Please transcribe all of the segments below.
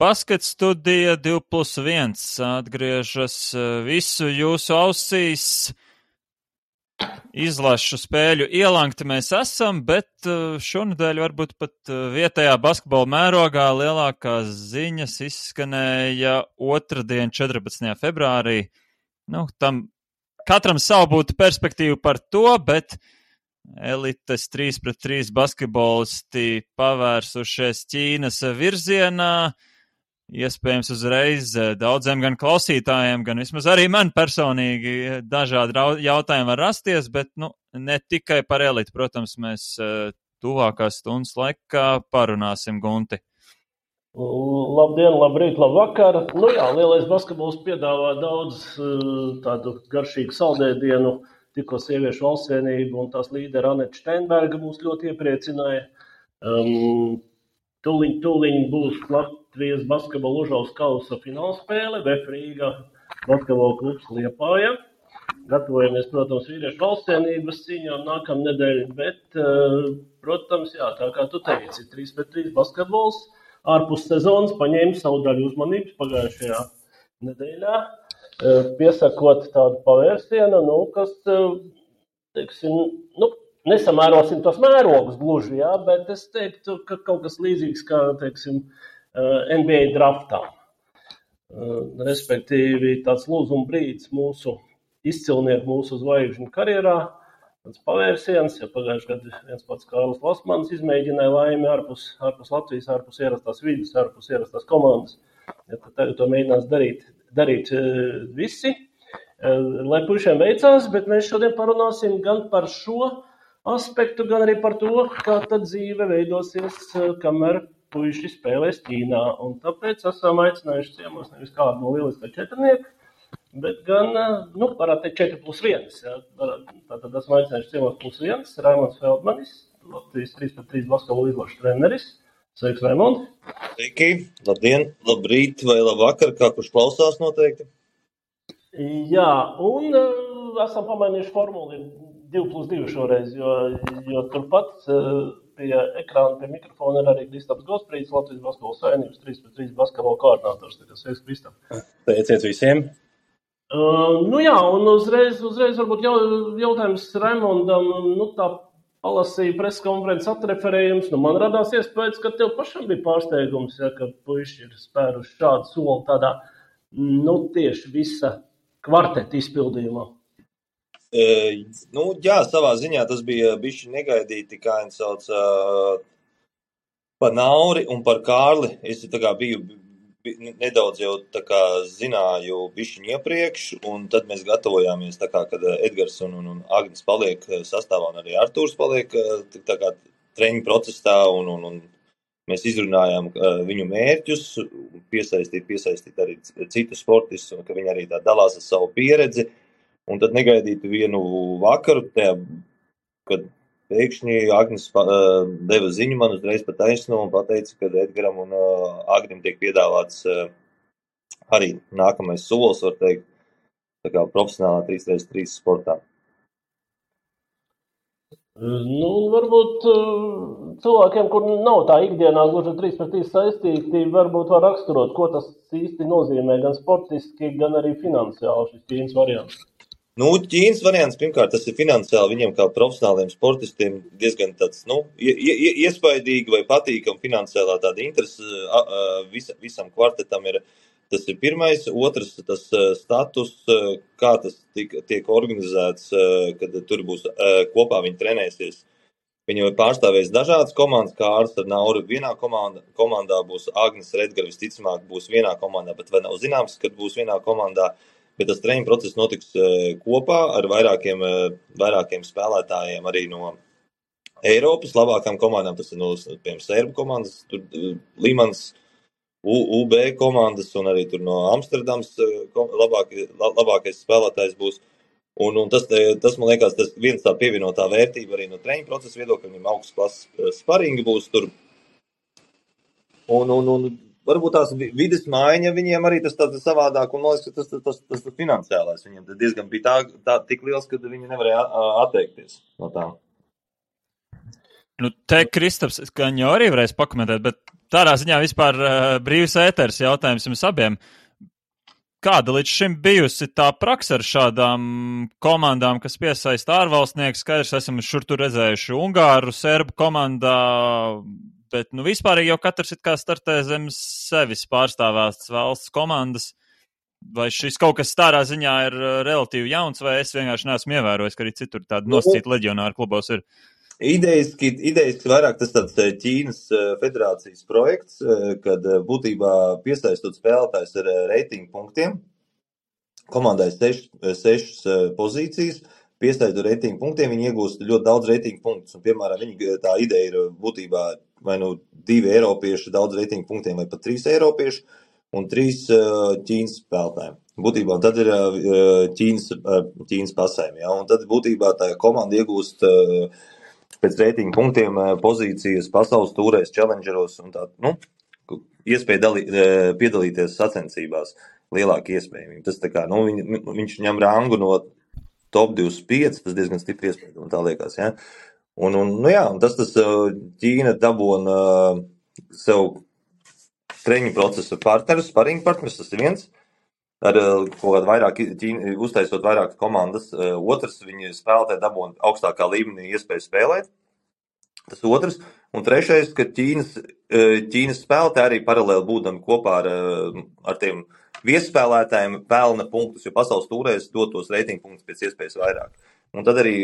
Basket studija 2+1 atgriežas visu jūsu ausīs. Izlašu spēļu ielankti mēs esam, bet šonedēļ varbūt pat vietējā basketbola mērogā lielākās ziņas izskanēja otrdien 14. februārī. Tam katram savu būtu perspektīvu par to, bet elites 3-3 basketbolisti pavērsušies Ķīnas virzienā. Iespējams uzreiz daudziem gan klausītājiem, gan vismaz arī man personīgi dažādi jautājumi var rasties, bet ne tikai par elitu. Protams, mēs tuvākās stundas laikā parunāsim, Gunti. Labdien, labrīt, labvakar. Lielais basketbols piedāvā daudz tādu garšīgu saldēdienu. Tikko sieviešu valstsvienība un tās līdera Aneta Steinberga mūs ļoti iepriecināja. Tūliņ būs Latvijas basketbola Užaus kausa finālspēle, VF Rīga basketbola klubs Liepāja. Gatavojamies, protams, vīriešu valstsvienības cīņām nākamnedēļ, bet, protams, tā kā tu teici, 3-3 basketbols ārpus sezonas paņēma savu daļu uzmanības pagājušajā nedēļā, piesakot tādu pavērsienu, kas, teiksim, nesamērosim tos mērogus gluži, bet es teiktu, ka kaut kas līdzīgs kā, teiksim, NBA draftā. Respektīvi tāds lūzuma brīdis mūsu izcilnieku, mūsu zvaigžņu karjerā, tāds pavērsiens, pagājušajā gadā viens pats Kārlis Lasmans izmēģināja laimi ārpus Latvijas, ārpus ierastās vidas, ārpus ierastās komandas. Tagad to mēģinās darīt visi, lai puišiem veicās, bet mēs šodien parunāsim gan par šo aspektu, gan arī par to, kā tad dzīve veidosies, kamēr puiši spēlēs Ķīnā. Un tāpēc esam aicinājuši ciemos nevis kādu no lieliskā četrnieka, bet gan, varētu teikt 4+1. Tātad esam aicinājuši ciemos +1, Raimonds Feldmanis, Latvijas 3-3 basketbola izlašu treneris. Sveiks, Raimond! Sveiki! Labdien, labrīt vai labvakar, kā kurš klausās noteikti. Jā, un esam pamainījuši formuli 2+2 šoreiz, jo turpat pie ekrāna, pie mikrofona ir arī Kristaps Gosprīts, Latvijas basketbola savienības 3+3 basketbola koordinators. Sveiks, Kristap! Teiciet visiem! Un uzreiz varbūt jautājums Raimondam, tā palasīja preskonferences atreferējums, man radās iespējas, ka tev pašam bija pārsteigums, ka puiši ir spēruši šādu soli tādā, tieši visa kvarteta izpildījumā. Jā, savā ziņā tas bija bišķi negaidīti, kā viņi sauc, par Nauri un par Kārli. Es biju nedaudz jau zināju bišķiņu iepriekš, un tad mēs gatavojāmies, kad Edgars un Agnis paliek sastāvā, un arī Artūrs paliek treniņu procesā, un mēs izrunājām viņu mērķus, piesaistīt arī citus sportistus, un ka viņi arī tā dalās ar savu pieredzi. Un tad negaidītu vienu vakaru, kad pēkšņi Agnis deva ziņu man uzreiz pa taisno un pateica, ka Edgaram un Agnim tiek piedāvāts arī nākamais solis, var teikt, profesionālā 3x3 sportā. Varbūt cilvēkiem, kur nav tā ikdienā gluži 3x3 saistīti, varbūt var raksturot, ko tas īsti nozīmē gan sportiski, gan arī finansiāli šis Ķīnas variants. Ķīnas variants, pirmkārt, tas ir finansiāli viņiem kā profesionāliem sportistiem diezgan tāds, iespaidīgi vai patīkam finansiālā tāda interese visam kvartetam ir. Tas ir pirmais. Otrs, tas status, kā tas tiek organizēts, kad tur būs kopā viņi trenēsies. Viņi jau pārstāvēs dažādas komandas, kā Ārs ar Nauru vienā komandā būs Agnis Redgar, visticamāk būs vienā komandā, bet vēl nav zināms, kad būs vienā komandā. Bet tas treniņu process notiks kopā ar vairākiem spēlētājiem arī no Eiropas labākām komandām. Tas ir piemēram Sērbu komandas, tur Limans, UB komandas un arī tur no Amsterdams labākais spēlētājs būs. Un tas, man liekas, tas viens tā pievienotā vērtība arī no treniņu procesa viedokļa, viņam augsts klases sparingi būs tur. Un varbūt tās vides maiņa viņiem arī tas tāds savādāk, un man liekas, ka tas finansiālais viņiem diezgan bija tā tik liels, ka viņi nevarēja atteikties no tā. Te Kristaps, gan jau arī varēs pakomentēt, bet tādā ziņā vispār brīvs ēters jautājums jums abiem. Kāda līdz šim bijusi tā praksa ar šādām komandām, kas piesaista ārvalstnieku? Skaidrs, esam šur tur redzējuši Ungāru, Serbu komandā, bet vispārīgi jau katrs it kā startē zem sevis pārstāvētas valsts komandas. Vai šis kaut kas tādā ziņā ir relatīvi jauns, vai es vienkārši neesmu ievērojis, ka arī citur tādi nosacīti leģionāri klubos ir? Idejiski vairāk tas tāds Ķīnas federācijas projekts, kad būtībā piesaistot spēlētājs ar reitingu punktiem, komandai 6 pozīcijas, piesaistot reitingu punktiem, viņi iegūst ļoti daudz reitingu punktus. Un, piemēram, tā ideja ir būtībā vai 2 eiropieši daudz reitingu punktiem, vai pat 3 eiropieši un 3 Ķīnas spēlētājiem. Būtībā, un tad ir Ķīnas pasēm, ja? Un tad būtībā tā komanda iegūst pēc reitingu punktiem pozīcijas pasaules tūrēs, challengeros un tā, iespēja piedalīties sacensībās, lielāka iespējamība. Tas tā kā, viņš ņem rangu no top 25, tas diezgan stipri iespēja, un tā liekas, ja. Un tas Ķīna dabona sev treniņu procesu partnerus, sparingu partnerus, tas ir viens. Ar kaut kādu vairāk, uztaisot vairāk komandas. Otrs, viņi spēlētāji dabūna augstākā līmenī iespēju spēlēt. Tas otrs. Un trešais, ka Ķīnas spēlētāji arī paralēli būdami kopā ar tiem viesspēlētājiem pelna punktus, jo pasaules tūrēs dotos reitingu punktus pēc iespējas vairāk. Un tad arī,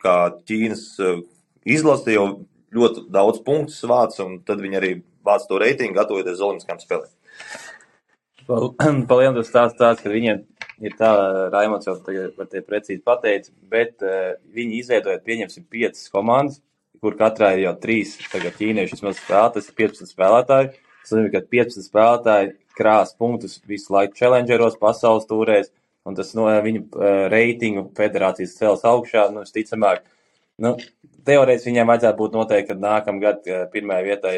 kā Ķīnas izlase jau ļoti daudz punktus vāc, un tad viņi arī vāc to reitingu, gatavoties uz olimpiskām spēlēm. Palielam tas stāsts, ka viņiem ir tā, Raimonds jau tagad par tie precīzi pateica, bet viņi izveidojot, pieņemsim 5 komandas, kur katrā ir jau 3 tagad ķīnieši vismaz spēlē, tas ir 15 spēlētāji. Tas nozīmē, ka 15 spēlētāji krās punktus visu laiku challengeros, pasaules tūrēs, un tas viņu reitingu federācijas cels augšā, visticamāk. Teorētiski viņiem vajadzētu būt noteikti, ka nākamgad pirmajai vietai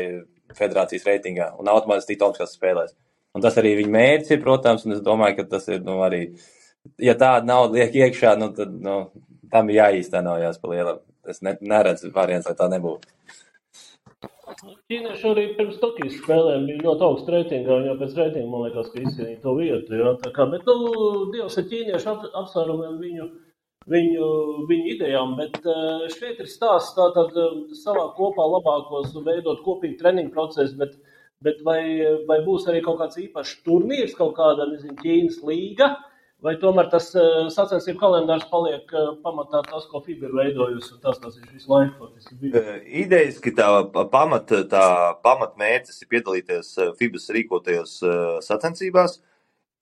federācijas reitingā un automātiski tikt olimpiskās spēlēs. Un tas arī viņa mērķis ir, protams, un es domāju, ka tas ir, arī, ja tāda nauda liek iekšā, tad, tam ir jāīstenojās pa lielam. Es neredzu variants, lai tā nebūtu. Ķīnieši arī pirms Tokijas spēlēm bija ļoti augsts reitingā, un jau pēc reitinga, man liekas, ka izcīnīja to vietu, jā, tā kā, bet, Dievs ar ķīniešu apsvērumiem viņu idejām, bet šeit ir stāsts tātad savā kopā labākos veidot kopīgi treniņu procesu, bet vai būs arī kaut kāds īpašs turnīrs, kaut kāda, Ķīnas līga, vai tomēr tas sacensību kalendārs paliek pamatā tas, ko FIBA ir veidojusi, un tas ir visu laiku faktiski bija? Idejiski tā pamatmērķis ir piedalīties FIBAs rīkotajos sacensībās.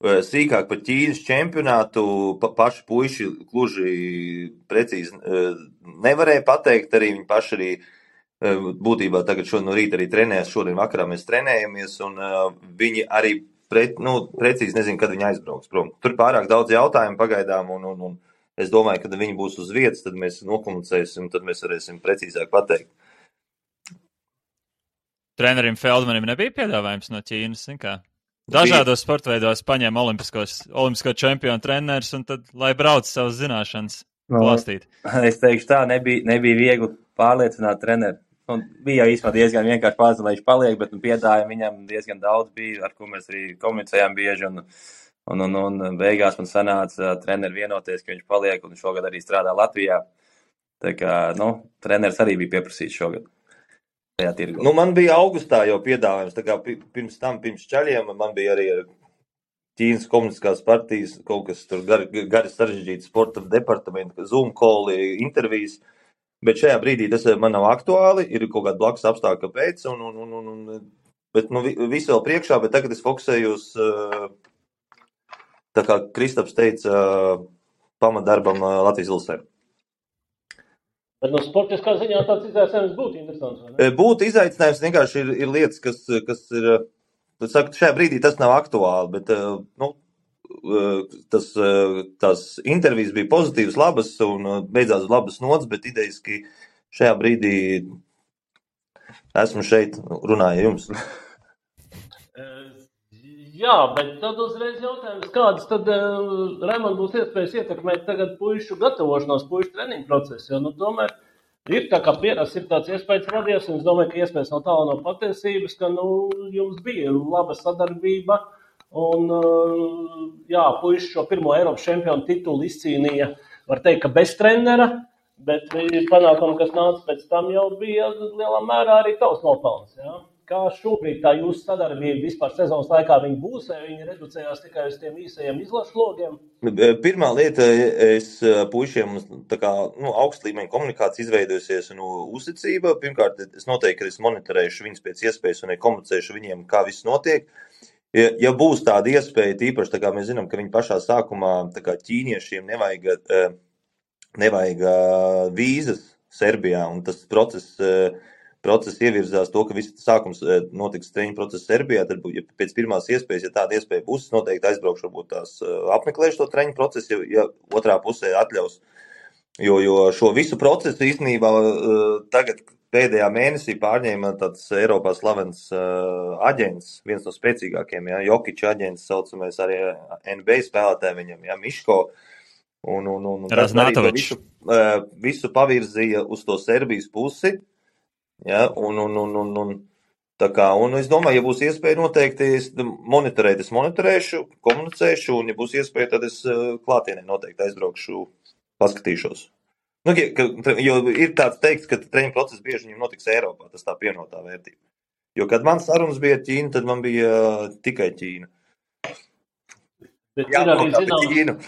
Sīkāk par Ķīnas čempionātu paši puiši gluži precīzi nevarēja pateikt, arī viņi paši arī būtībā tagad no rīta arī trenējas, šodien vakarā mēs trenējamies, un viņi arī precīzi nezinu, kad viņi aizbrauks prom. Tur pārāk daudz jautājumu pagaidām, un es domāju, kad viņi būs uz vietas, tad mēs nokomunicēsim, tad mēs varēsim precīzāk pateikt. Trenerim Feldmanim nebija piedāvājums no Ķīnas, kā? Dažādos sportveidos paņēma olimpisko čempionu treneris, un tad, lai brauc savas zināšanas klāstīt. Es teikšu tā, nebija viegli pārliecināt treneri. Bija jau īstenībā diezgan vienkārši pārzināt, lai viņš paliek, bet piedāvājumu viņam diezgan daudz bija, ar ko mēs arī komunicējām bieži, un beigās man sanāca treneri vienoties, ka viņš paliek, un šogad arī strādā Latvijā. Tā kā, treneris arī bija pieprasīts šogad. Man bija augustā jau piedāvājums, tā kā pirms čaļiem, man bija arī Ķīnas komunistiskās partijas, kaut kas tur gari sarežģīti sporta departamenta, Zoom call, intervijas, bet šajā brīdī tas man nav aktuāli, ir kaut kāda blakus apstākļa pēc, bet visu vēl priekšā, bet tagad es fokusējos, tā kā Kristaps teica, pamatdarbam Latvijas Ilsē. Bet sportiskā ziņā tāds izaicinājums būtu interesants, vai ne? Būtu izaicinājums, vienkārši ir lietas, kas ir, saku, šajā brīdī tas nav aktuāli, bet, tās intervijas bija pozitīvas, labas un beidzās labas nots, bet idejiski šajā brīdī esmu šeit, runāju jums. Jā, bet tad uzreiz jautājums, kādas tad, Raimond, būs iespējas ietekmēt tagad puišu gatavošanos, puišu treniņu procesu, jo, tomēr Ir tā kā pierasts, ir tāds iespējas radies, un es domāju, ka iespējas no tālu no patiesības, ka, jums bija laba sadarbība, un, jā, puiši šo pirmo Eiropas čempionu titulu izcīnīja, var teikt, ka bez trenera, bet panākumi, kas nāca pēc tam, jau bija lielā mērā arī tavs nopelns, jā. Kā šobrīd tā jūsu sadarbība vispār sezonas laikā viņi būs, vai viņi reducējās tikai uz tiem īsajiem izlašu logiem? Pirmā lieta, es puišiem tā kā, augsta līmeņa komunikācija izveidojusies un uzticība. Pirmkārt, es noteikti, ka es monitorēšu viņus pēc iespējas un komunicēšu viņiem, kā viss notiek. Ja būs tāda iespēja, tīpaši, tā kā mēs zinām, ka viņi pašā sākumā, tā kā ķīniešiem nevajag vīzas Serbijā, un tas process ievirzās to, ka viss sākums notiks treniņu process Serbijā, tad ja pēc pirmās iespējas, ja tāda iespēja būs, noteikti aizbraukšu, varbūt tās apmeklēšu to treniņu procesu, ja otrā pusē atļaus. Jo šo visu procesu īstenībā tagad pēdējā mēnesī pārņēma tāds Eiropā slavens aģents, viens no spēcīgākiem, ja, Jokiča aģents, saucamais arī NBA spēlētāji viņam, ja, Miško. Un tas arī visu pavirzīja uz to Serbijas pusi. Ja, tā kā, un es domāju, ja būs iespēja noteikti monitorēt, es monitorēšu, komunicēšu, un ja būs iespēja, tad es klātienē noteikti aizbraukšu, paskatīšos. Jo ir tāds teikts, ka treniņu process bieži viņam notiks Eiropā, tas tā pievienotā vērtība. Jo, kad man sarunas bija ar Ķīnu, tad man bija tikai Ķīna. Bet ir arī zināms.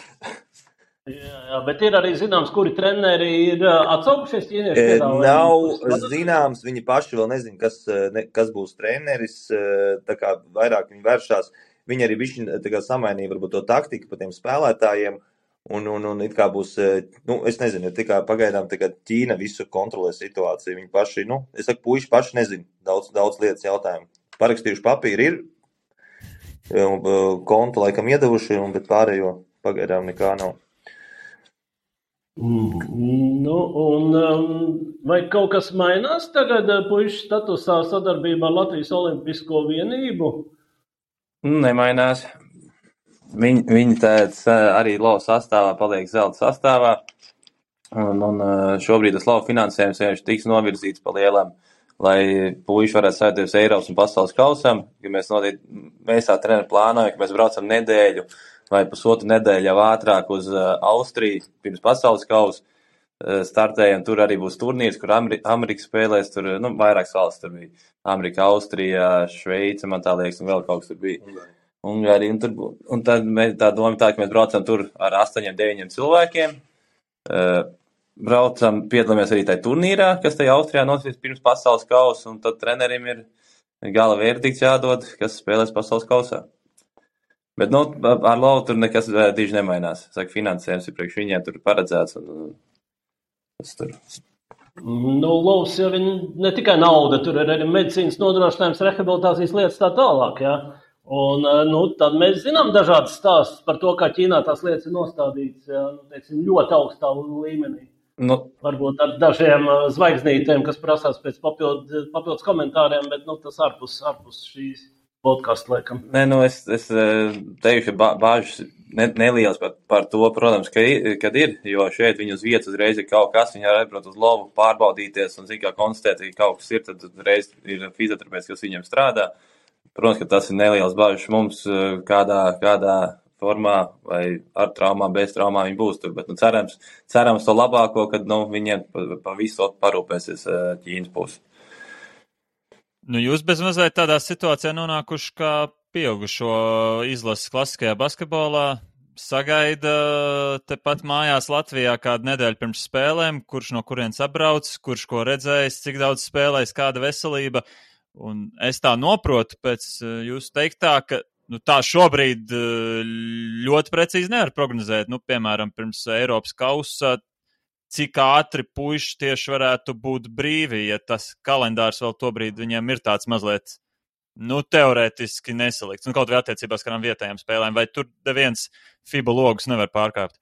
Jā, bet ir arī zināms, kuri treneri ir atsaukušies ķīnieši piedāvājumi? Nav zināms, viņi paši vēl nezin, kas būs treneris, tā kā vairāk viņi vēršās. Viņi arī bišķi tā kā samainīja varbūt to taktiku pa tiem spēlētājiem, un it kā būs, es nezinu, tikai pagaidām Ķīna visu kontrolē situāciju. Viņi paši, es saku, puiši paši nezin daudz lietas jautājumu. Parakstījuši papīri ir, kontu laikam iedavuši, bet pārējo pagaidām nekā nav. Vai kaut kas mainās tagad puišu statusā sadarbībā ar Latvijas Olimpisko vienību? Nemainās. Viņi arī LOV sastāvā paliek zelta sastāvā, un šobrīd tas LOV finansējums vienkārši tiks novirzīts pa lielam, lai puiši varētu saistīties Eiropas un pasaules kausam, ka mēs tā treneri plānojam, ka mēs braucam nedēļu vai pusotru nedēļu jau ātrāk uz Austriju pirms pasaules kausa startējam. Tur arī būs turnīrs, kur Amerika spēlēs, tur vairākas valsts tur bija. Amerika, Austrija, Šveice, man tā liekas, un vēl kaut kas tur bija. Ungārija, un tad tā doma tā, ka mēs braucam tur ar 8-9 cilvēkiem. Braucam, piedalāmies arī tajā turnīrā, kas tajā Austrijā notiks pirms pasaules kausa, un tad trenerim ir gala verdikts jādod, kas spēlēs pasaules kausā. Bet, ar LOV tur nekas diži nemainās. Saka, finansējums ir priekš viņiem tur paredzēts. Tas tur. LOVs jau ir ne tikai nauda, tur ir arī medicīnas nodrošinājums, rehabilitācijas lietas tā tālāk, jā. Un, tad mēs zinām dažādas stāstus par to, kā Ķīnā tās lietas ir nostādītas, jā, teiksim, ļoti augstā līmenī. Varbūt ar dažiem zvaigznītēm, kas prasās pēc papildus komentāriem, bet, tas ārpus šīs podcastu laikam. Es teikšu, ka bāžas nelielas par to, protams, kad ir, jo šeit viņi uz vietas uzreiz ir kaut kas, viņi var atbraukt uz LOV, pārbaudīties un kā konstatēt, ka kaut kas ir, tad uzreiz ir fizioterapeits, kas viņiem strādā. Protams, ka tas ir nelielas bāžas mums, kādā formā vai ar traumām, bez traumām viņi būs tur, bet cerams to labāko, kad viņiem pa visu parūpēsies Ķīnas pusi. Jūs bez mazliet tādā situācijā nonākuši kā pieaugušo izlases klasiskajā basketbolā, sagaida tepat mājās Latvijā kādu nedēļu pirms spēlēm, kurš no kurienes atbrauc, kurš ko redzējis, cik daudz spēlējis, kāda veselība. Un es tā noprotu pēc jūsu teiktā, ka tā šobrīd ļoti precīzi nevar prognozēt. Piemēram, pirms Eiropas kausa, cik ātri puiši tieši varētu būt brīvi, ja tas kalendārs vēl tobrīd viņiem ir tāds mazliet, teorētiski nesalikts. Kaut vai attiecībās kādām vietējām spēlēm, vai tur neviens FIBA logus nevar pārkāpt?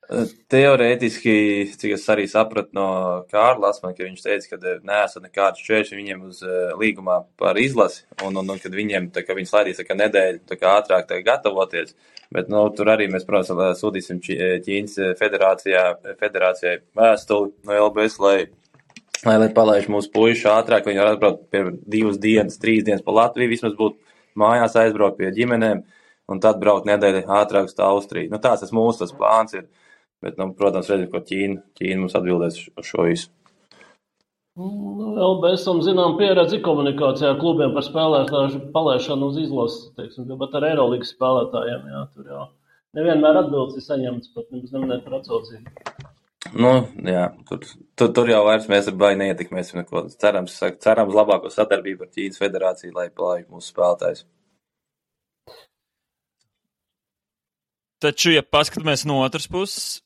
Teorētiski, cik es arī sapratu no Kārla Lasmana, ka viņš teica, ka neesat nekāds šķēršļi viņiem uz līgumā par izlasi, un kad viņiem, ka viņi slaidīs nedēļu ātrāk gatavoties. Bet, tur arī mēs, protams, sūtīsim Ķīnas federācijai vēstuli no LBS, lai lai palaiž mūsu puiši ātrāk, viņi var atbraukt pie 2 dienas, 3 dienas pa Latviju, vismaz būt mājās, aizbraukt pie ģimenēm, un tad braukt nedēļu ātrāk uz Austriju. Tas mūsu plāns ir, bet, protams, redzam, ko Ķīna mums atbildēs uz šo visu. Vēl mēs zinām pieredzi komunikācijā klubiem par spēlētāju palaišanu uz izlases, teiksim, bet ar Eirolīgas spēlētājiem, tur jau nevienmēr atbildes ir saņemts, pat nemaz neminēt par atsaucību. Tur jau vairs mēs ar baigi neietekmēsim neko. Cerams labāko sadarbību ar Ķīnas federāciju, lai palaiž mūsu spēlētājus. Taču, ja paskatāmies no otras puses,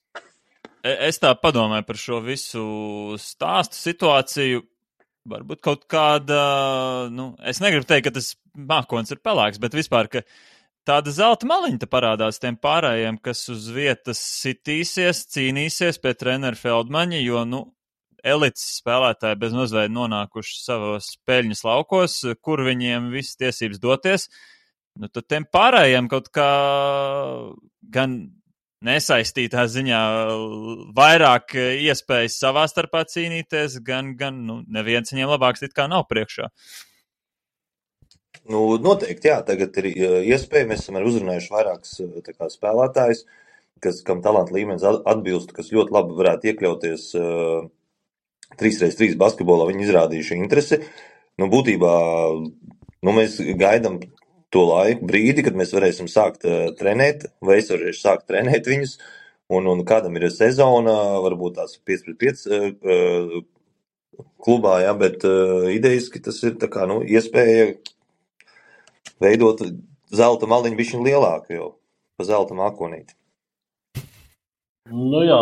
es tā padomāju par šo visu stāstu situāciju, varbūt kaut kāda, es negribu teikt, ka tas mākonis ir pelēks, bet vispār, ka tāda zelta maliņa parādās tiem pārējiem, kas uz vietas sitīsies, cīnīsies pie treneru Feldmaņa, jo, elites spēlētāji bez mazveida nonākuši savos peļņas laukos, kur viņiem visas tiesības doties, tad tiem pārējiem kaut kā gan nesaistītā ziņā vairāk iespējas savā starpā cīnīties, gan neviens viņiem labāks it kā nav priekšā. Noteikti, jā, tagad ir iespēja, mēs esam arī uzrunājuši vairākas spēlētājus, kam talanta līmenis atbilst, kas ļoti labi varētu iekļauties 3x3 basketbolā, viņi izrādījuši interesi. Būtībā, mēs gaidām to laiku brīdi, kad mēs varēsim sākt trenēt, vai es varēšu sākt trenēt viņus, un kādam ir sezona, varbūt tās 5x5 klubā, jā, bet idejiski tas ir iespēja veidot zelta maliņu bišķiņ lielāku jau, pa zelta mākonīti. Jā,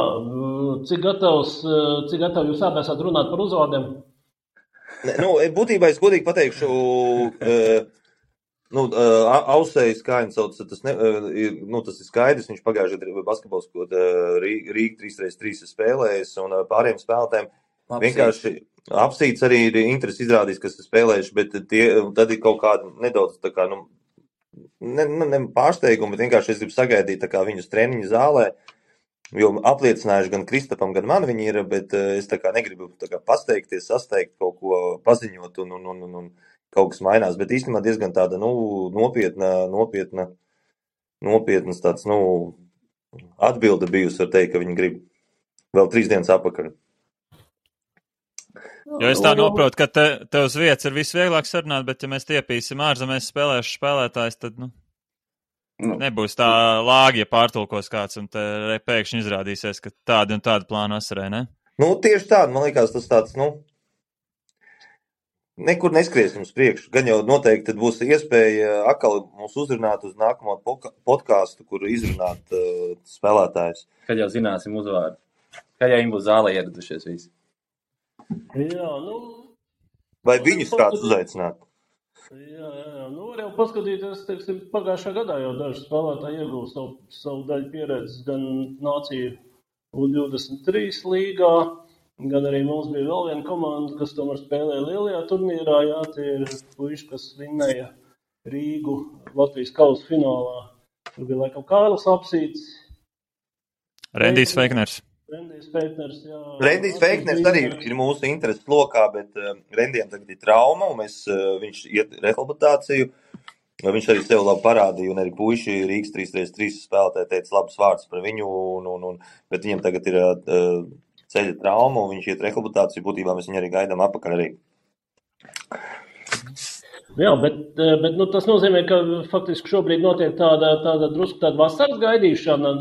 cik gatavi jūs abi esat runāt par uzvārdiem? Būtībā es godīgi pateikšu, Ausējs, kā viņš sauc, tas ir skaidrs, viņš pagājušajā gadā basketbols, ko Rīga 3x3 spēlējis, un pārējiem spēlētājiem vienkārši apsīts arī ir interesi izrādījis, kas ir spēlējuši, bet tad ir kaut kāda nedaudz ne pārsteiguma, bet vienkārši es gribu sagaidīt viņus treniņu zālē, jo apliecinājuši gan Kristapam, gan man viņi ir, bet es negribu pasteigties, sasteigt kaut ko paziņot un kaut kas mainās, bet īstenībā diezgan tāda, nopietnas tāds, atbilde bijusi, var teikt, ka viņi grib vēl 3 dienas apakaļ. Jo es tā noprotu, ka te uz vietas ir visvieglāk sarunāt, bet ja mēs tiepīsim ārzemēs spēlējuši spēlētājs, tad, nebūs tā lāgi, ja pārtulkos kāds un te pēkšņi izrādīsies, ka tādi un tādi plāni asarē, ne? Tieši tādi, man liekas, tas tāds, nekur neskriesim uz priekšu. Gan jau noteikti tad būs iespēja atkal mūs uzrunāt uz nākamo podcastu, kur izrunāt spēlētājus. Kad jau zināsim uzvārdu. Kad jau viņi būs zālē ieradušies visi. Jā, vai viņus kāds uzaicināt? Jā, var jau paskatīties, teiksim, pagājušā gadā jau daži spēlētāji iegūst savu daļu pieredzes gan nāciju U23 līgā, gan arī mums bija vēl viena komanda, kas tomēr spēlēja lielajā turnīrā, jā, tie ir puiši, kas vinnēja Rīgu Latvijas kausa finālā. Tur bija laikam Kārlis Apsīts. Rendijs Feikners. Rendijs Feikners arī ir mūsu intereses lokā, bet Rendijam tagad ir trauma, un viņš iet rehabilitāciju. Viņš arī sev labi parādīja, un arī puiši Rīgas 3x3 spēlētāji teica labus vārdus par viņu, bet viņam tagad ir ceļa trauma, un viņš iet rehabilitāciju. Būtībā mēs viņu arī gaidām apakaļ arī. Jā, bet tas nozīmē, ka faktiski šobrīd notiek tāda drusku tāda vasaras gaidīšana.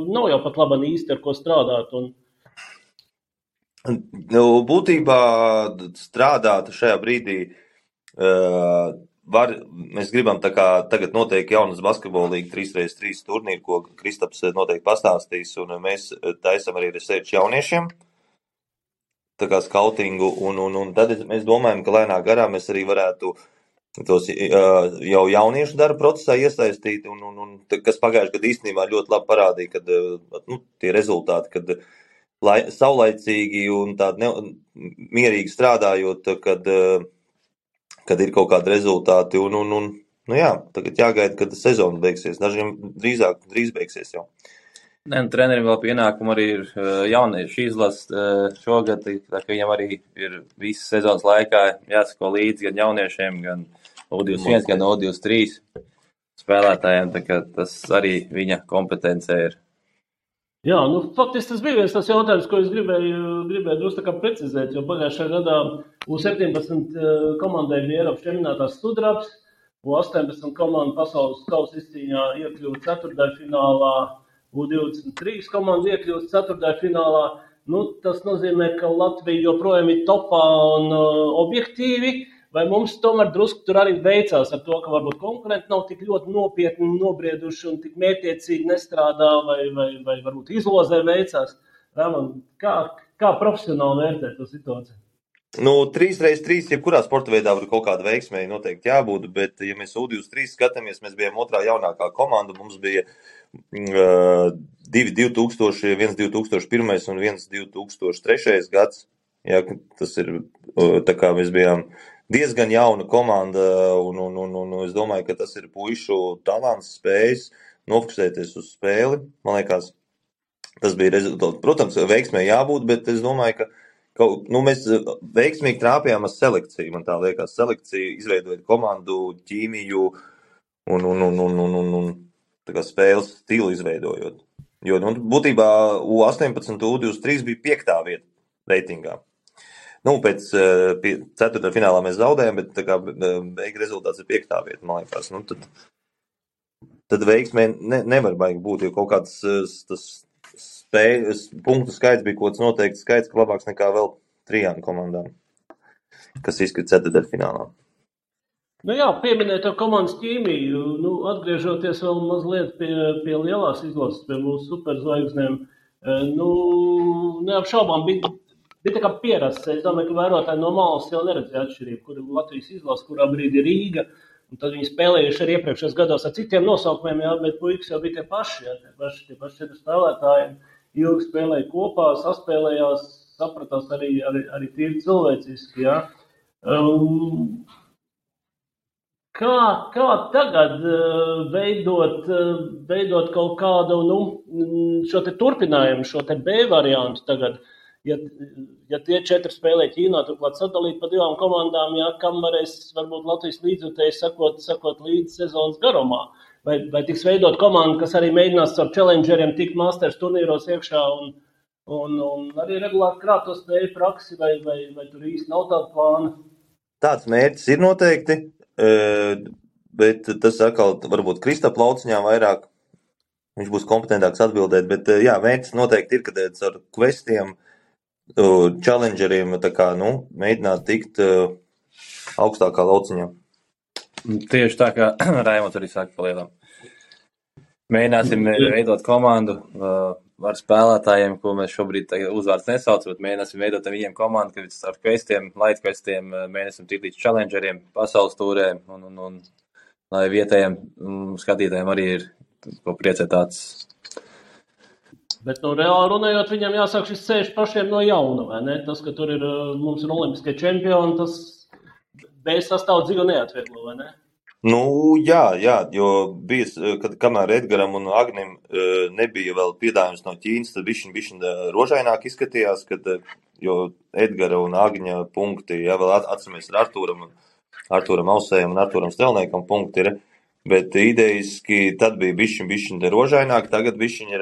Nav jau pat labi īsti ar ko strādāt. Būtībā strādāt šajā brīdī mēs gribam tagad noteikti jaunas basketbola līga 3x3 turnīru, ko Kristaps noteikti pastāstīs, un mēs taisam arī research jauniešiem. Skautingu, un tad mēs domājam, ka lēnā garā mēs arī varētu tos jau jauniešu darba procesā iesaistīt, un kas pagājušajā gadā īstenībā ļoti labi parādīja, kad tie rezultāti, kad saulaicīgi un tādi mierīgi strādājot, kad ir kaut kādi rezultāti, jā, tagad jāgaida, kad sezona beigsies, dažiem drīz beigsies jau. Trenerim vēl pienākumu arī ir jauniešu izlases šogad, tā ka viņam arī ir visas sezonas laikā jāsako līdzi gan jauniešiem, gan U21, gan U23 spēlētājiem, tā ka tas arī viņa kompetencē ir. Jā, faktiski tas bija viens tas jautājums, ko es gribēju drusku tā kā precizēt, jo pagājušajā gadā U17 komandai bija Eiropas čempionātās sudrabs, U18 komanda pasaules kausa izcīņā iekļuva ceturtdaļfinālā, U23 komanda iekļūst ceturtdaļfinālā. Tas nozīmē, ka Latvija joprojām ir topā un objektīvi, vai mums tomēr drusku tur arī veicās ar to, ka varbūt konkurenti nav tik ļoti nopietni nobrieduši un tik mērķiecīgi nestrādā, vai varbūt izlozē veicās. Ramon, kā profesionāli vērtēt to situāciju? 3x3, jebkurā sporta veidā var kaut kāda veiksmēji noteikti jābūt, bet, ja mēs U23 skatāmies, mēs bijām otrā jaunākā komanda, mums bija 2 2000, 1 2001 un 1 2003 gads. Jā, tas ir, tā kā mēs bijām diezgan jauna komanda, un es domāju, ka tas ir puišu talants, spējas nofokusēties uz spēli. Man liekas, tas bija rezultāts. Protams, veiksmēji jābūt, bet es domāju, ka mēs veiksmīgi trāpījām ar selekciju. Man tā liekas, selekcija izveidojot komandu, ķīmiju un tā kā spēles stilu izveidojot. Jo, būtībā U18 U23 bija 5. vieta reitingā. Pēc 4. finālā mēs zaudējām, bet tā kā beigu rezultāts ir 5. vieta, man liekas. Tad veiksmē nevar baigi būt, jo kaut kāds tas punktu skaits bija kaut kāds noteikts skaits, ka labāks nekā vēl 3 komandām, kas izkrita 4. finālā. Pieminēt to komandas ķīmiju, atgriežoties vēl mazliet pie lielās izlases, pie mūsu superzvaigznēm, neapšaubām bija tā kā pierasts. Es domāju, ka vērotāji no malas jau neredzēja atšķirību, kur ir Latvijas izlase, kurā brīdī ir Rīga, un tad viņi spēlējuši arī iepriekšējos gados ar citiem nosaukumiem, bet puikas jau bija tie paši 4 spēlētāji. Ilgi spēlēja kopā, saspēlējās, sapratās arī tīri cilvēciski. Ja? Kā tagad veidot kaut kādu šo te turpinājumu, šo te B variantu tagad, ja tie 4 spēlē Ķīnā, turklāt sadalīt pa 2 komandām, kam varēs varbūt Latvijas līdzjutēji sakot līdz sezonas garumā? Vai tiks veidot komandu, kas arī mēģinās ar challengeriem tikt masters turnīros iekšā un arī regulāri krāt to spēju praksi, vai tur īsti nav tāda plāna? Tāds mērķis ir noteikti, bet tas atkal varbūt Kristapa lauciņā vairāk, viņš būs kompetentāks atbildēt, bet jā, mērķis noteikti ir, kad ar questiem, challengeriem, tā kā, mēģināt tikt augstākā lauciņā. Tieši tā, kā Raimonds arī saka palielam. Mēģināsim veidot komandu ar spēlētājiem, ko mēs šobrīd uzvārds nesaucam, bet mēģināsim veidot viņiem komandu, ka ar questiem, light questiem mēģināsim tikt līdz challengeriem, pasaules tūrēm un lai vietējiem skatītājiem arī ir ko priecētāts. Bet reāli runājot, viņam jāsāk šis ceļš pašiem no jauna, vai ne? Tas, ka tur mums ir olimpiskie čempioni, tas bez sastāvu dzīvi neatvieglo, vai ne? Jā, jo bija, kamēr Edgaram un Agnim nebija vēl piedāvājums no Ķīnas, tad bišķiņ rožaināk izskatījās, jo Edgara un Agņa punkti, vēl atceramies ar Artūram Ausējam un Artūram Stelniekam punkti ir, bet idejiski tad bija bišķiņ rožaināk, tagad bišķiņ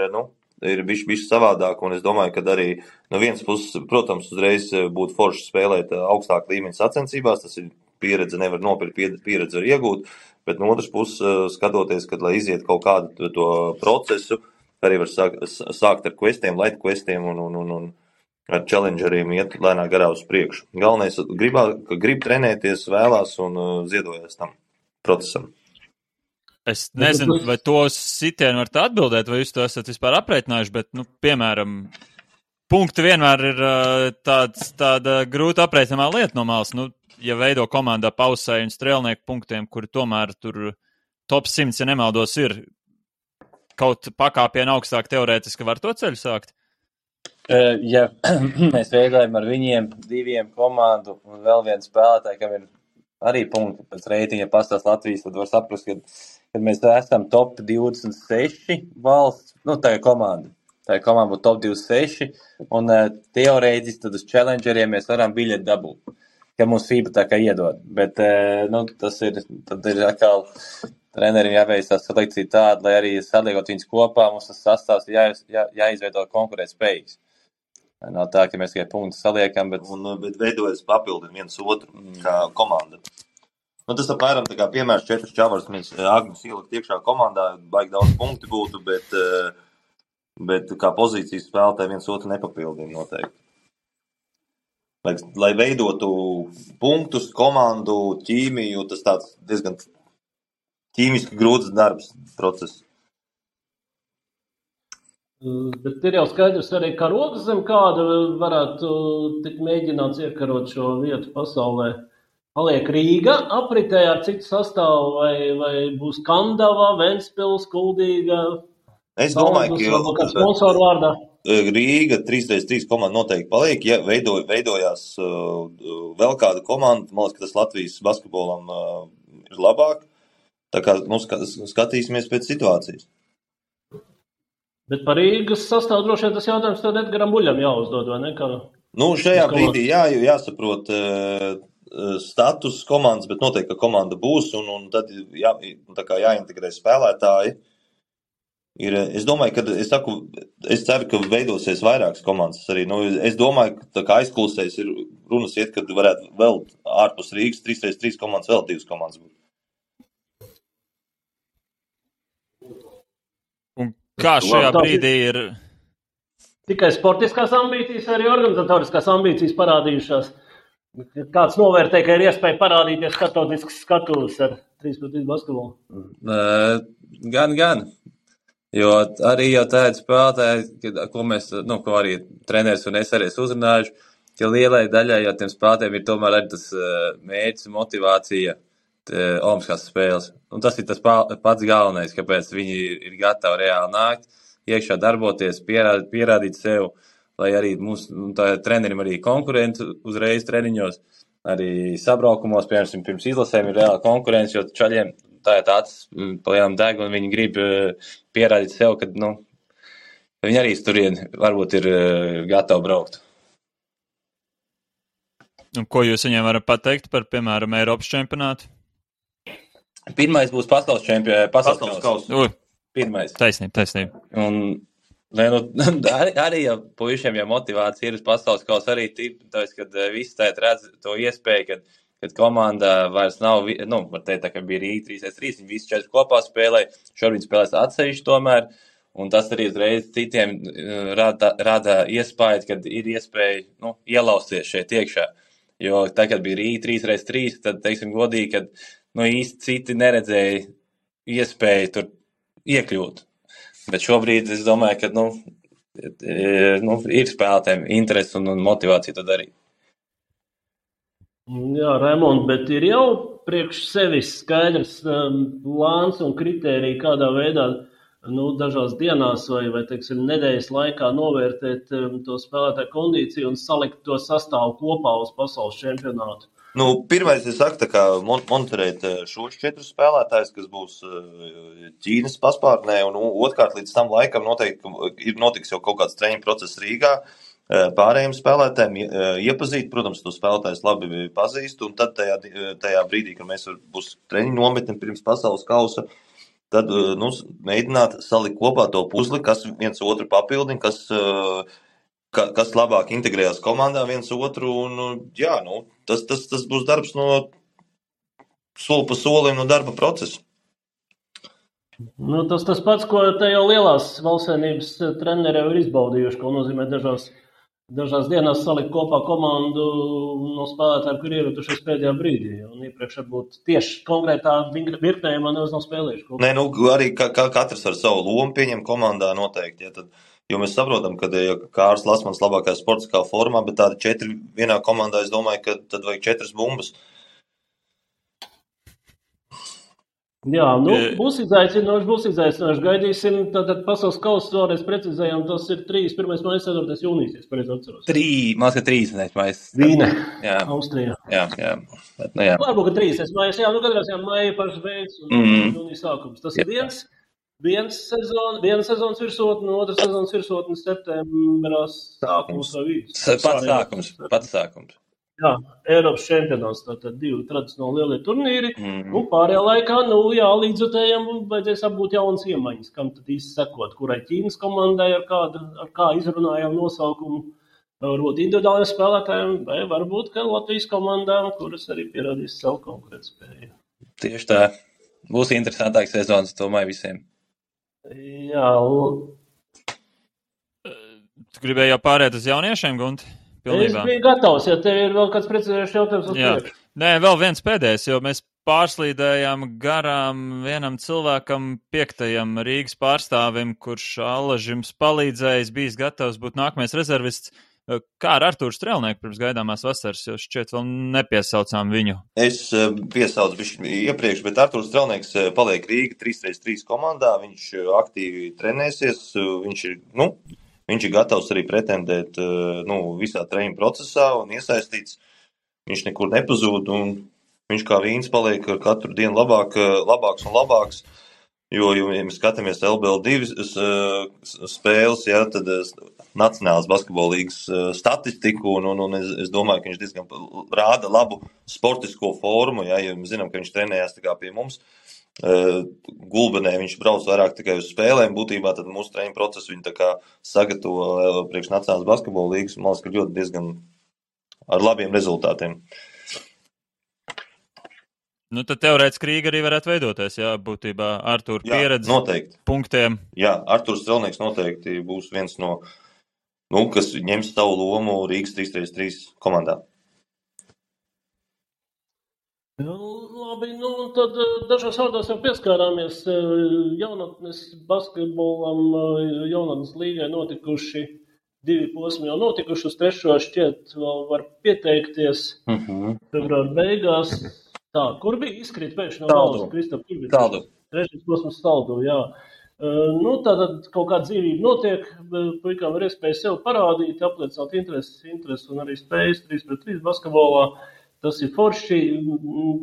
ir bišķi savādāk, un es domāju, ka arī no vienas puses, protams, uzreiz būtu forši spēlēt augstāk līmeņa sacensībās, tas ir pieredze, nevar nopirkt, pieredze var iegūt, bet no otras puses skatoties, kad lai iziet kaut kādu to procesu, arī var sākt ar questiem, light questiem un ar challengeriem iet lēnā garā uz priekšu. Galvenais, grib trenēties, vēlās un ziedojas tam procesam. Es nezinu, vai to sitienu varat atbildēt, vai jūs to esat vispār aprēķinājuši, bet, piemēram, punkti vienmēr ir tāda grūta aprēķinamā lieta no malas. Ja veido komandā Pausēju un Strēlnieku punktiem, kuri tomēr tur top 100, ja nemaldos, ir kaut pakāpienu augstāk teorētiski var to ceļu sākt? Ja mēs veidojam ar viņiem 2 komandu un vēl vienu spēlētāju, kam ir arī punkti pēc reitinga pastāst Latvijas, tad var saprast, kad mēs esam top 26 valsts, tā ir komanda. Tā ir komanda būtu top 26, un teorētiski tad uz challengeriem mēs varam biļeti dabūt, ka mums FIBA tā kā iedod. Bet, tad ir atkal treneriem jāveic tā selekcija tāda, lai arī saliekot viņus kopā, mums tas sastāvs jāizveido konkurēt spējīgs. Nav tā, ka mēs tikai punktus saliekam, bet veidojas papildina viens otru kā komanda. Tas apmēram tā kā piemērs 4 čavars, mēs Agnes ielikt iekšā komandā, baigi daudz punkti būtu, bet kā pozīcijas spēlētāji viens otru nepapildina noteikti. Lai veidotu punktus, komandu, ķīmiju, tas tāds diezgan ķīmiski grūts darbs process. Bet ir jau skaidrs arī, ka rokas zem kāda varētu tik mēģināts iekarot šo vietu pasaulē. Paliek Rīga apritē ar citu sastāvu, vai būs Kandava, Ventspils, Kuldīga? Es domāju, ka sponsoru vārdā. Rīga 3x3 komanda noteikti paliek, ja veidojās vēl kāda komanda, man liekas, ka tas Latvijas basketbolam ir labāk, tā kā skatīsimies pēc situācijas. Bet par Rīgas sastāvu droši vien tas jautājums tad Edgaram Buļam jāuzdod, vai ne? Šajā brīdī jāsaprot status komandas, bet noteikti, ka komanda būs, un tad jāintegrē spēlētāji. Es domāju, es ceru, ka veidosies vairākas komandas arī. Es domāju, ka tā kā aizklusēs ir runas iet, kad varētu vēl ārpus Rīgas 3x3 komandas vēl 2 komandas būt. Un kā šajā brīdī ir? Tikai sportiskās ambīcijas, arī organizatoriskās ambīcijas parādījušās. Kāds novērtē, ka ir iespēja parādīties starptautisks skatuves ar 3x3 basketbolu? Gan. Jo arī jau tādi spēlētāji, ko arī treneris un es arī uzrunājuši, ka lielai daļai jau tiem spēlētājiem ir tomēr arī tas mērķis un motivācija olimpiskās spēles. Un tas ir tas pats galvenais, kāpēc viņi ir gatavi reāli nākt, iekšā darboties, pierādīt sev, lai arī mūsu trenerim arī konkurenti uzreiz treniņos, arī sabraukumos, piemēram, pirms izlasēm ir reāli konkurence, jo čaļiem tā ir tāds palielam deg, un viņi grib pierādīt sev, ka viņi arī turien varbūt ir gatavi braukt. Un ko jūs viņiem varat pateikt par, piemēram, Eiropas čempionātu? Pirmais būs pasaules kausa. Pirmais. Taisnība. Un arī jau puišiem jau motivācija ir uz pasaules kausa arī tāpēc, kad visi tēt redz to iespēju, kad komanda vairs nav, var teikt, tā kā bija Rīga 3x3, viņi visi 4 kopā spēlē, šobrīd spēlēs atsevišķi tomēr, un tas arī uzreiz citiem rada iespēju, kad ir iespēja ielausties šeit iekšā. Jo tā, kad bija Rīga 3x3, tad, teiksim, godīgi, kad īsti citi neredzēja iespēju tur iekļūt. Bet šobrīd es domāju, ka ir spēlētājiem interesi un motivācija to darīt. Jā, Raimond, bet ir jau priekš sevis skaidrs plāns un kritērija, kādā veidā dažās dienās vai teiksim, nedēļas laikā novērtēt to spēlētāju kondīciju un salikt to sastāvu kopā uz pasaules čempionātu. Pirmais, es saku, tā kā monitorēt šos 4 spēlētājus, kas būs Ķīnas paspārnē, un otrkārt līdz tam laikam noteikti notiks jau kaut kāds treniņu process Rīgā. Pārējiem spēlētājiem iepazīt, protams, to spēlētājus labi pazīst, un tad tajā brīdī, kad mēs būs treniņu nometni pirms pasaules kausa, tad mēģināt salikt kopā to puzli, kas viens otru papildina, kas labāk integrējās komandā viens otru, un tas būs darbs no soli pa solim no darba procesa. Tas pats, ko te jau lielās valstsvienības treneri ir izbaudījuši, ko nozīmē dažās dienās salikt kopā komandu no spēlētājiem, kur ierotušies pēdējā brīdī. Un iepriekš varbūt tieši konkrētā virknējumā nav spēlējuši. Arī katrs ar savu lomu pieņem komandā noteikti. Jo mēs saprotam, ka Kārlis Lasmans labākajā sportiskā formā, bet tādi 4 vienā komandā, es domāju, ka tad vajag 4 bumbas. Jā, būs izaicinoši. Gaidīsim, tad pasaules kausa vēlreiz precizējām, tas ir 1. maija, 4. jūnijas, es pareizi atceros. 3 maija. Vīne, Jā. Austrijā. Jā. Bet, jā. Varbūt, ka 3. maija, jā, katrā ziņā maija pašas beigas un jūnijas sākums. Tas ir viena sezonas virsotne, otra sezonas virsotne septembrā sākums vai vidus. Pats sākums. Jā, Eiropas čempionāts, tātad 2 tradicionāli lielie turnīri. Pārējā laikā, līdzotējiem vajadzēs apbūt jaunas iemaņas, kam tad īsti sekot, kurai Ķīnas komandai ar kā izrunājām nosaukumu, varbūt individuāliem spēlētājiem, vai varbūt, ka Latvijas komandām, kuras arī pierādīs savu konkurētspēju. Tieši tā. Būs interesantāks sezonas, domāju, visiem. Jā. Tu gribēji jau pārēt uz jauniešiem, Gunti? Pilnībā. Es biju gatavs, ja tev ir vēl kāds precizējušs jautājums uz priekšu. Nē, vēl viens pēdējais, jo mēs pārslīdējām garām vienam cilvēkam, 5. Rīgas pārstāvim, kurš Allažim palīdzējis, bijis gatavs būt nākamais rezervists. Kā ar Artūru Strelnieku pirms gaidāmās vasaras, jo šķiet vēl nepiesaucām viņu? Es piesaucu bišķi iepriekš, bet Artūrs Strelnieks paliek Rīga 3x3 komandā, viņš aktīvi trenēsies, viņš ir gatavs arī pretendēt visā treniņu procesā un iesaistīts. Viņš nekur nepazūd un viņš kā vīns paliek ar katru dienu labāks un labāks. Jo, ja mēs skatāmies LBL2 spēles, jā, tad Nacionālās basketbola līgas statistiku un es domāju, ka viņš diezgan rāda labu sportisko formu, jā, jo mēs zinām, ka viņš trenējās tā kā pie mums. Gulbenē viņš brauc vairāk tikai uz spēlēm, būtībā tad mūsu treniņu procesu viņi tā kā sagatavo priekš Nacionālās basketbola līgas, man liekas, ka ļoti diezgan ar labiem rezultātiem. Tad teorētiski Rīga arī varētu veidoties, jā, būtībā Artūra pieredze noteikti. Punktiem. Jā, Artūrs Strelnieks noteikti būs viens no, kas ņems savu lomu Rīgas 3x3 komandā. Labi, tad dažos vārdos jau pieskārāmies jaunatnes basketbolam, jaunatnes līgai notikuši 2 posmi jau notikuši, uz 3. šķiet vēl var pieteikties februāra beigās. Tā, kur bija izkrīt pēkšņi no valsts, Kristap? Taldu. 3. posms Taldu, jā. Tātad kaut kāda dzīvība notiek, puikām ir iespēja sev parādīt, apliecināt interesi un arī spējas 3x3 basketbolā. Tas ir forši,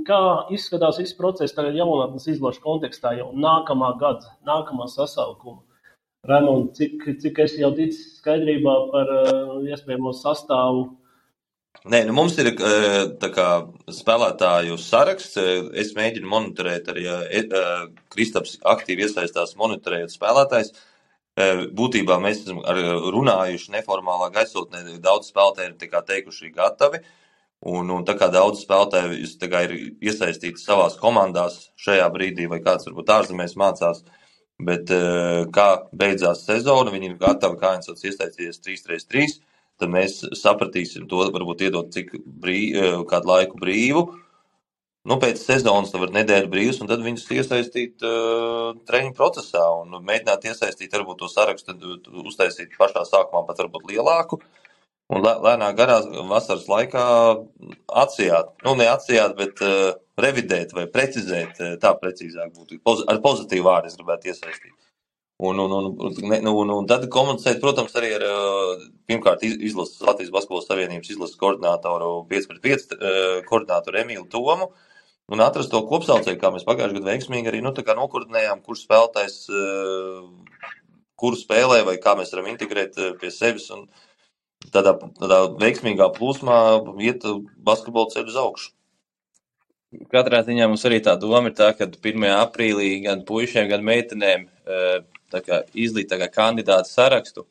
kā izskatās viss process tagad jaunatnes izlašu kontekstā jau nākamā gada, nākamā sasaukuma. Raimond, cik es jau ticis skaidrībā par iespējamo sastāvu? Nē, mums ir tā kā spēlētāju saraksts. Es mēģinu monitorēt arī, Kristaps aktīvi iesaistās monitorējot spēlētājs. Būtībā mēs esam runājuši neformālā gaisotnē, daudz spēlētāji ir teikuši gatavi. Un tā kā daudz spēlētāji ir iesaistīti savās komandās šajā brīdī, vai kāds varbūt ārzemēs mācās, bet kā beidzās sezona, viņi ir gatavi, kā viens iesaistīties 3x3, tad mēs sapratīsim to, varbūt iedot kādu laiku brīvu. Pēc sezonas tad var nedēļu brīvs, un tad viņus iesaistīt treniņu procesā un mēģināt iesaistīt varbūt to sarakstu, tad uztaisīt pašā sākumā pat varbūt lielāku. Un lēnā garā vasaras laikā atsijāt, neatsijāt, bet revidēt vai precizēt, tā precīzāk būtu, ar pozitīvu vārdu es gribētu iesaistīt. Un tad komunicēt, protams, arī ar, pirmkārt, Latvijas Basketbola Savienības izlases koordinātoru 5x5 koordinātoru Emīlu Tomu, un atrast to kopsaucēju, kā mēs pagājušajā gadā veiksmīgi arī, nokoordinējām, kurš spēlētājs, kuru spēlē, vai kā mēs varam integrēt pie sevis, un tādā veiksmīgā plūsmā iet basketbola ceļu uz augšu. Katrā ziņā mums arī tā doma ir tā, ka 1. aprīlī gan puišiem, gan meitenēm izlīt kandidātu sarakstu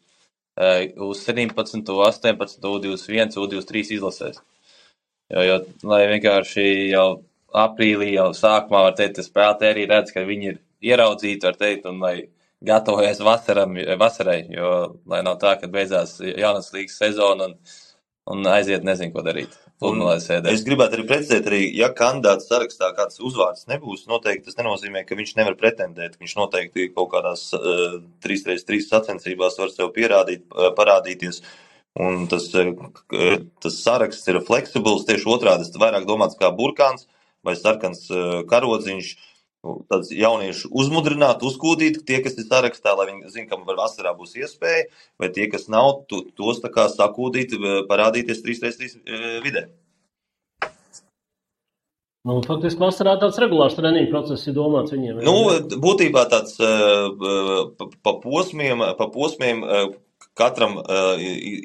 uz 17, 18, U21, U23 izlasēs. Jo, lai vienkārši jau aprīlī, jau sākumā var teikt, ka spēlētāji arī redz, ka viņi ir ieraudzīti, var teikt, un lai gatavojas vasarai, jo lai nav tā, ka beidzās jaunas līgas sezona un aiziet nezinu, ko darīt. Es gribētu arī precizēt, ja kandidāts sarakstā kāds uzvārds nebūs, noteikti tas nenozīmē, ka viņš nevar pretendēt. Viņš noteikti kaut kādās 3x3 sacensībās var sev parādīties. Un tas saraksts ir fleksibls, tieši otrādi, tas vairāk domāts kā burkāns vai sarkans karodziņš. Tāds jaunieši uzmudrināt, uzkūdīt, tie, kas ir sarakstā, lai viņi zina, kam vasarā būs iespēja, vai tie, kas nav, tos tā kā sakūdīt, parādīties 3x3 vidē. Faktiski vasarā tāds regulārs treniņu process ir domāts viņiem. Būtībā tāds pa posmiem katram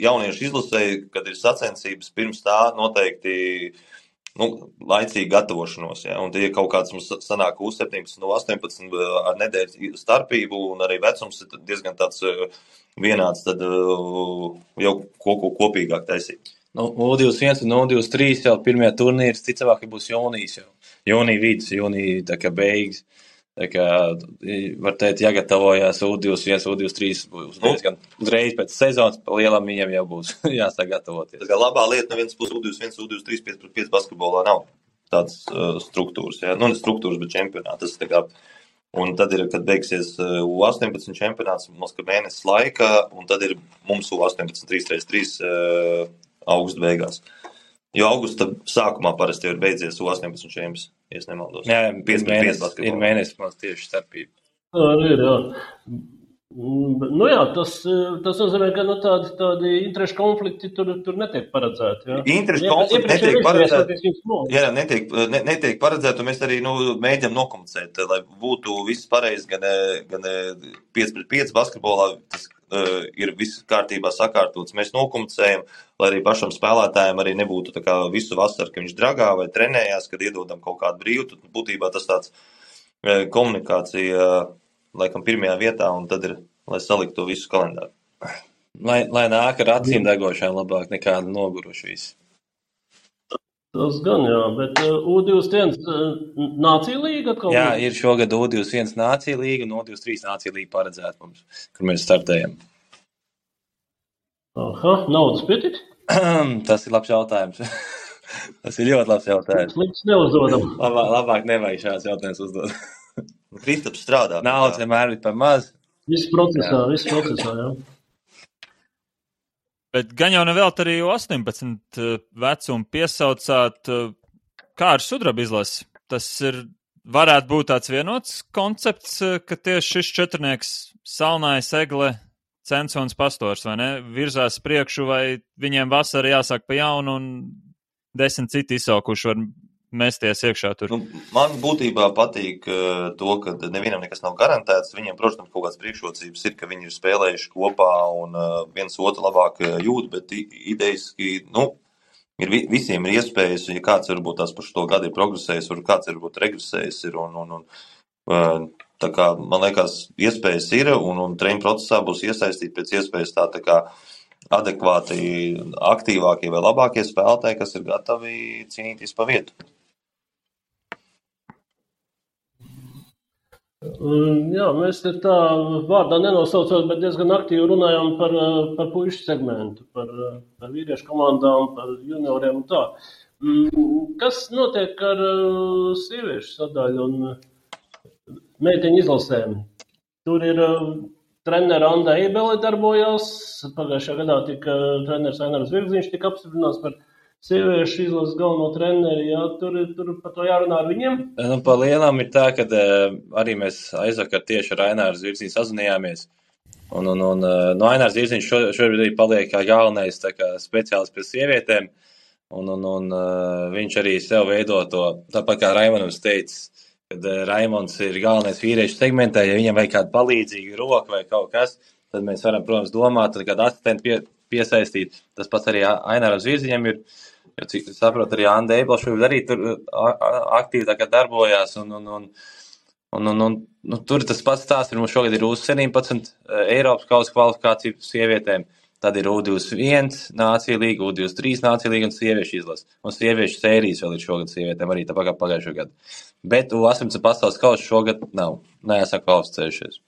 jauniešu izlasēji, kad ir sacensības, pirms tā noteikti laicīgi gatavošanos. Ja? Un tie kaut kāds mums sanāk U17 no 18 ar nedēļas starpību, un arī vecums ir diezgan tāds vienāds, tad jau kopīgāk taisīt. U21 un U23 jau pirmie turnīri, ticamāk, būs jūnijas jau. Jūnija vidus, jūnija tā kā beigas. Tā kā, var teikt, jāgatavojās U21, U23 būs diezgan uzreiz pēc sezonas, pa lielam viņam jau būs jāsāk gatavoties. Tā kā labā lieta no vienas puses U21, U23 5x5 basketbolā nav tādas struktūras, ja? Ne struktūras, bet čempionāti. Tā kā, un tad ir, kad beigsies U18 čempionāts, mums ka mēnesis laika, un tad ir mums U18 3x3 augusta beigās. Jo augusta sākumā parasti jau ir beidzies U18 čempions, ja es nemaldos. Jā, ir mēnesis mums tieši starpība. Jā. Tas nozīmē, ka tādi interešu konflikti tur netiek paredzēti. Ja? Interešu konflikti netiek paredzēti. Jā, netiek paredzēti, un mēs arī mēģinām nokomunicēt, lai būtu viss pareizi, gan 5x5 basketbolā, tas ir viss kārtībā sakārtots. Mēs nokomunicējam, lai arī pašam spēlētājiem arī nebūtu tā kā visu vasaru, ka viņš dragā vai trenējās, kad iedodam kaut kādu brīvu. Tad būtībā tas tāds komunikācija laikam pirmajā vietā, un tad ir, lai saliktu to visu kalendāru. Lai nāk ar acīm degošām labāk nekā noguruši visi. Tas gan, jā, bet U21 nācija līga atkal? Jā, ir šogad U21 nācija līga un U23 nācija līga paredzēta mums, kur mēs startējam. Naudas pietiks? Tas ir labs jautājums. Tas ir ļoti labs jautājums. Slikts neuzdodam. Labāk nevajag šāds jautājums uzdot. Kristaps strādā. Naudas vienmēr ir par maz. Viss procesā, jā. Bet gan jau nevēlt arī 18 vecumu piesaucāt, kā ar sudraba izlasi. Tas varētu būt tāds vienots koncepts, ka tieši šis četrnieks Salnājs, Egle, Censons, Pastors, vai ne, virzās priekšu, vai viņiem vasara jāsāk pa jaunu un 10 citi izsaukuši var mesties iekšā tur. Man būtībā patīk to, ka nevienam nekas nav garantēts. Viņiem, protams, kaut kādas priekšrocības ir, ka viņi ir spēlējuši kopā un viens otru labāk jūt, bet idejiski, ir visiem ir iespējas, ja kāds varbūt tās par šo gadu ir progresējis, vai kāds varbūt regresējis ir, tā kā, man liekas, iespējas ir, un treniņu procesā būs iesaistīti pēc iespējas tā kā adekvāti, aktīvākie vai labākie spēlētāji, kas ir gatavi cīnīties pa vietu. Jā, mēs te tā vārdā nenosaucot, bet diezgan aktīvi runājām par puišu segmentu, par vīriešu komandām, par junioriem un tā. Kas notiek ar sieviešu sadaļu un meiteņu izlasēm? Tur ir trenera Anda Eibele darbojās, pagājušajā gadā tika treneris Ainārs Virgziņš tika apstiprināts par sieviešu izlases galveno treneri, jā, tur par to jārunā ar viņiem? Pa lielām ir tā, ka arī mēs aizvakar tieši ar Aināru Zvirziņu sazinājāmies. Un Ainārs Zvirziņš šobrīd arī paliek kā galvenais tā kā speciālists pie sievietēm. Un viņš arī sev veido to, tāpat kā Raimondams teica, kad Raimonds ir galvenais vīriešu segmentē, ja viņam vajag kādu palīdzīgu roku vai kaut kas, tad mēs varam, protams, domāt, tad kādu asistentu piesaistīt. Tas pats arī Aināram Zvirziņam ir. Jo, cik saprotu, arī Anda Eibele šobrīd arī tur aktīvi tā kā darbojās, un tur tas pats stāsts, mums šogad ir U17 Eiropas kausa kvalifikācija sievietēm, tad ir U21 nācija līga, U23 nācija līga un sieviešu izlase. Un sieviešu sērijas vēl ir šogad sievietēm, arī tāpēc kā pagājušo gadu. Bet U18 pasaules kausa šogad nav, neesam kvalificējušies.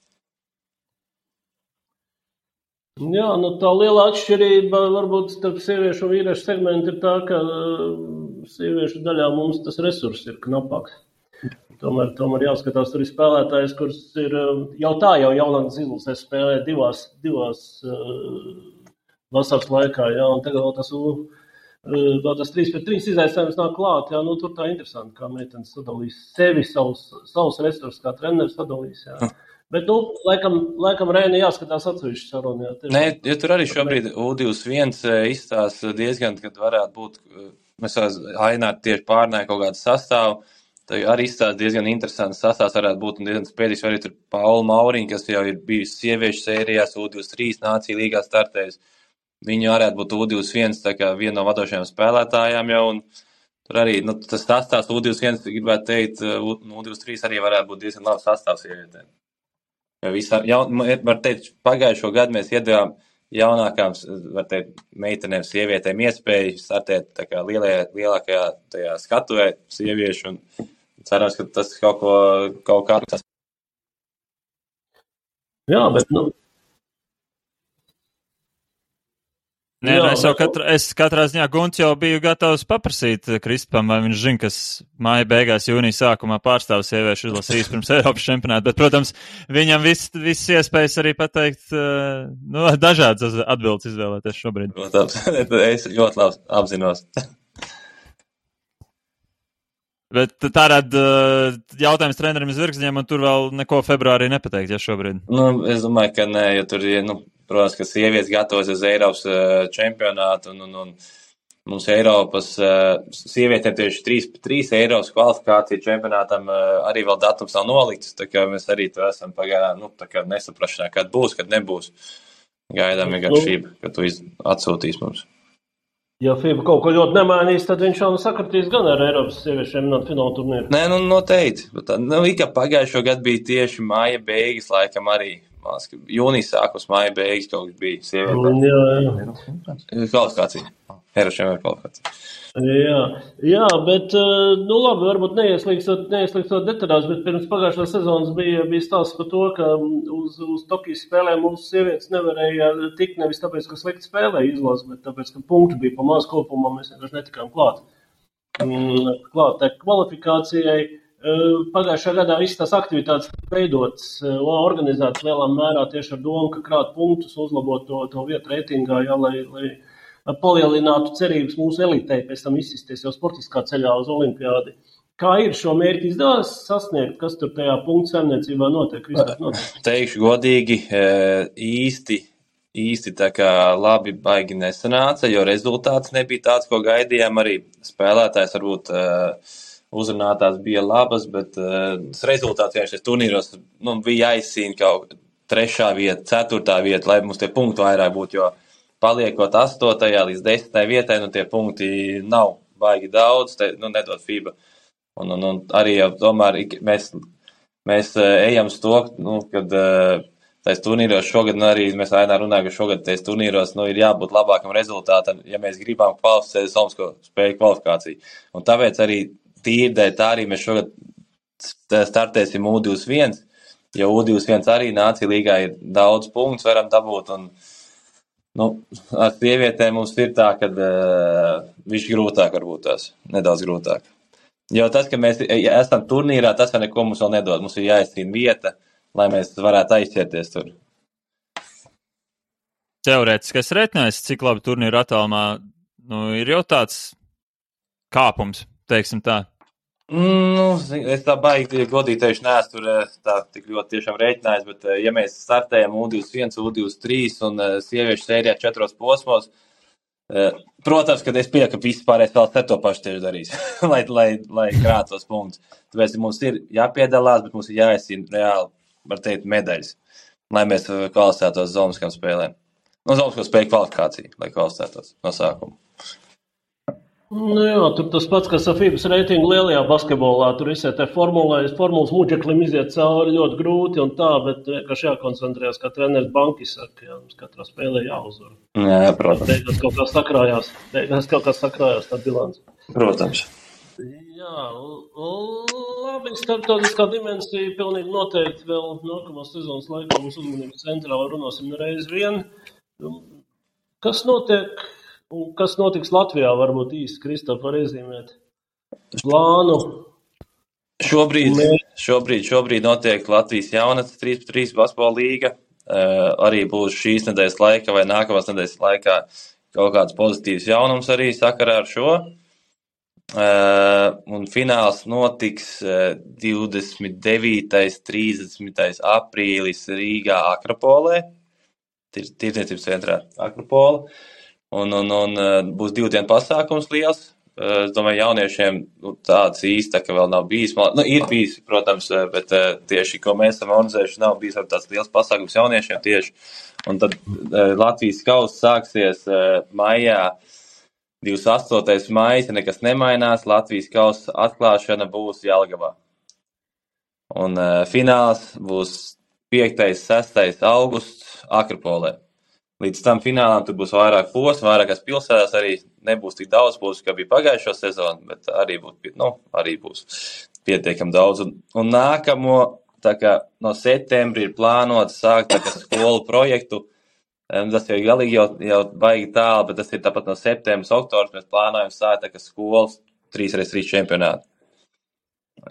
Jā, tā liela atšķirība varbūt starp sieviešu un vīriešu segmentu ir tā, ka sieviešu daļā mums tas resurs ir knapāks. Tomēr jāskatās, tur ir spēlētājs, kurš ir jau jaunākas izlasēs spēlē divās vasaras laikā, jā, un tagad vēl tas tas 3-3 izaicinājums nāk klāt, jā, tur tā interesanti, kā meitenes sadalīs sevi, savus resursus, kā treneris sadalīs, jā. Bet, laikam Reini jāskatās atsevišķi sarunu, jā. Nē, ja tur arī šobrīd U21 izstās diezgan, kad varētu būt, mēs Aināri tieši pārnāja kaut kādu sastāvu, tad arī izstās diezgan interesants sastāvs varētu būt un diezgan spēdīgs, arī tur Paula Mauriņa, kas jau ir bijusi sieviešu sērijās, U23 nācija līgā startējusi. Viņa varētu būt U21, tā kā viena no vadošajām spēlētājām jau, un tur arī, tas sastāvs U21, gribētu teikt, U23 arī varētu būt diezgan labs sastāvs sievietēm. Var teikt, pagājušo gadu mēs iedevām jaunākām, var teikt, meitenēm, sievietēm iespēju startēt tā kā lielākajā tajā skatuvē sieviešu, un cerams, ka tas kaut kā. Jā, bet, Nē, es katrā ziņā Gunts jau biju gatavs paprasīt Kristupam, vai viņš zina, kas māja beigās jūnija sākumā pārstāv sieviešu izlasīs pirms Eiropas čempionāta, bet, protams, viņam viss iespējas arī pateikt, dažādas atbildes izvēlēties šobrīd. Protams, es ļoti labi apzinos. Bet tārād jautājums trenerim Zvirgzņiem, un tur vēl neko februārī nepateikt, ja šobrīd? Es domāju, ka nē, jo tur ir, protams, ka sievietes gatavojas uz Eiropas čempionātu, un mums Eiropas sievietēm tieši 3 Eiropas kvalifikācija čempionātam arī vēl datums nav nolikts, tā kā mēs arī to esam pagaidām, tā kā nesaprašanā, kad būs, kad nebūs. Gaidām vienkārši, ka tu atsūtīs mums. Ja FIBA kaut ko ļoti nemainīs, tad viņš jau sakritīs gan ar Eiropas sieviešiem fināla turnīru. Nē, noteikti. Kā pagājušo gadu bija tieši māja beigas, laikam arī. Jūnijas sākums, māja beigas kaut kas bija sievietēm. Jā. Kvalifikācija. Eiropas čempionāta kvalifikācija. Jā, bet, labi, varbūt neieslīgstot detaļās, bet pirms pagājušās sezonas bija stāsts par to, ka uz Tokijas spēlēm mūsu sievietes nevarēja tikt nevis tāpēc, ka slikti spēlēja izlasi, bet tāpēc, ka punktu bija pa maz kopumā, mēs vienkārši netikām klāt tai kvalifikācijai. Pagājušā gadā visas tās aktivitātes veidotas, organizētas lielā mērā tieši ar domu, ka krāt punktus, uzlabot to vietu reitingā, jā, lai palielinātu cerības mūsu elitei pēc tam izsisties jau sportiskā ceļā uz olimpiādi. Kā ir šo mērķi izdevās sasniegt? Kas tur tajā punktu saimniecībā notiek? Teikšu godīgi, īsti tā kā labi baigi nesanāca, jo rezultāts nebija tāds, ko gaidījām. Arī spēlētājs varbūt uzrunātās bija labas, bet rezultāts vienkārši turnīros bija jāizcīna kaut 3. vieta, 4. vieta, lai mums tie punkti vairāk būtu, jo paliekot 8. līdz 10. vietai, tie punkti nav baigi daudz, nedod FIBA. Un arī jau tomēr mēs ejam uz to, kad tais turnīros šogad, arī mēs Ainā runājam, ka šogad tais turnīros ir jābūt labākam rezultātam, ja mēs gribam kvalificēt Somsko spēju kvalifikāciju. Un tāpēc arī tīrdēļ tā arī mēs šogad startēsim U21, jo U21 arī nācija līgā ir daudz punktus varam dabūt, un ar sievietēm mums ir tā, ka viņš grūtāk varbūt tās, nedaudz grūtāk. Jo tas, ka mēs esam turnīrā, tas vēl neko mums vēl nedod. Mums ir jāizcīna vieta, lai mēs varētu aizķerties tur. Teorētiskais reiķinājums, cik labi turnīra attālumā, ir jau tāds kāpums, teiksim tā. Es tā baigi godīgi teikšu, neesmu tur tā tik ļoti tiešām rēķinājis, bet ja mēs startējam U21, U23 un sieviešu sērijā 4 posmos, protams, kad es pieļauju, ka visi pārējais vēl to pašu tieši darīs, lai krātos punktus. Tāpēc mums ir jāpiedalās, bet mums ir jāizcīna reāli, var teikt, medaļas, lai mēs kvalificētos Zomskām spēlēm. Zomsko spēju kvalifikāciju, lai kvalificētos no sākuma. Jā, tur tas pats, kas ar FIBAS reitingu lielajā basketbolā, tur visai te formulas muģeklim iziet cauri ļoti grūti un tā, bet vienkārši jākoncentrējas, kā treneris Bankis saka, jā, mums katrā spēlē jāuzvar. Jā, protams. Beigās kaut kā sakrājās tā bilance. Protams. Jā, labi, starptautiskā dimensija pilnīgi noteikti vēl nākamās sezonas laikā mums uzmanības centrā runāsim reiz vien. Kas notiek? Un kas notiks Latvijā, varbūt īsti, Kristof, var iezīmēt plānu? Šobrīd notiek Latvijas jaunatnes 3x3 basketbola līga. Arī būs šīs nedēļas laikā vai nākamās nedēļas laikā kaut kāds pozitīvs jaunums arī sakarā ar šo. Un fināls notiks 29. 30. aprīlis Rīgā Akropolē, tirdzniecības centrā Akropola, un būs 2 dienu pasākums liels. Es domāju, jauniešiem tāds īsti, ka vēl nav bijis. Ir bijis, protams, bet tieši, ko mēs esam organizējuši, nav bijis tāds liels pasākums jauniešiem tieši. Un tad Latvijas kauss sāksies maijā, 28. maijs, ja nekas nemainās, Latvijas kausa atklāšana būs Jelgavā. Un fināls būs 5. 6. augusts Akropolē. Līdz tam finālam tur būs vairāk posmu, vairākās pilsētās arī nebūs tik daudz posmu, kā bija pagājušo sezonu, bet arī būs pietiekami daudz. Un nākamo, tā kā no septembra ir plānots sākt tā kā skolu projektu. Tas jau galīgi jau baigi tālu, bet tas ir tāpat no septembra, oktobra mēs plānojam sākt tā kā skolas 3x3 čempionātu.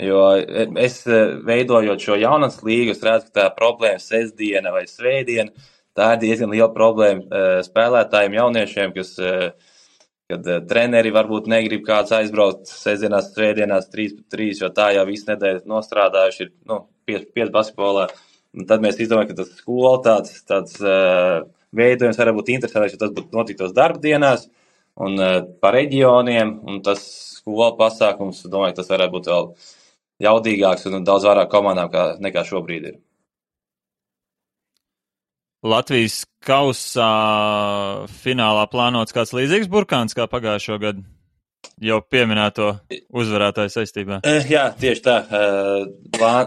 Jo es veidojot šo jaunatnes līgu, es redzu, ka tā problēma sestdiena vai svētdiena, tā ir diezgan liela problēma spēlētājiem, jauniešiem, kad treneri varbūt negrib kāds aizbraukt sestdienās, svētdienās 3x3, jo tā jau visu nedēļu nostrādājuši ir 5 basketbolā. Un tad mēs izdomājam, ka tas skola tāds veidojums var būt interesants, jo tas būtu notiktos darbdienās un pa reģioniem, un tas skola pasākums, domāju, tas varētu būt vēl jaudīgāks un daudz vairāk komandām nekā šobrīd ir. Latvijas kausā finālā plānots kāds līdzīgs burkāns kā pagājušo gadu, jau pieminēto uzvarētāju saistībā. Jā, tieši tā.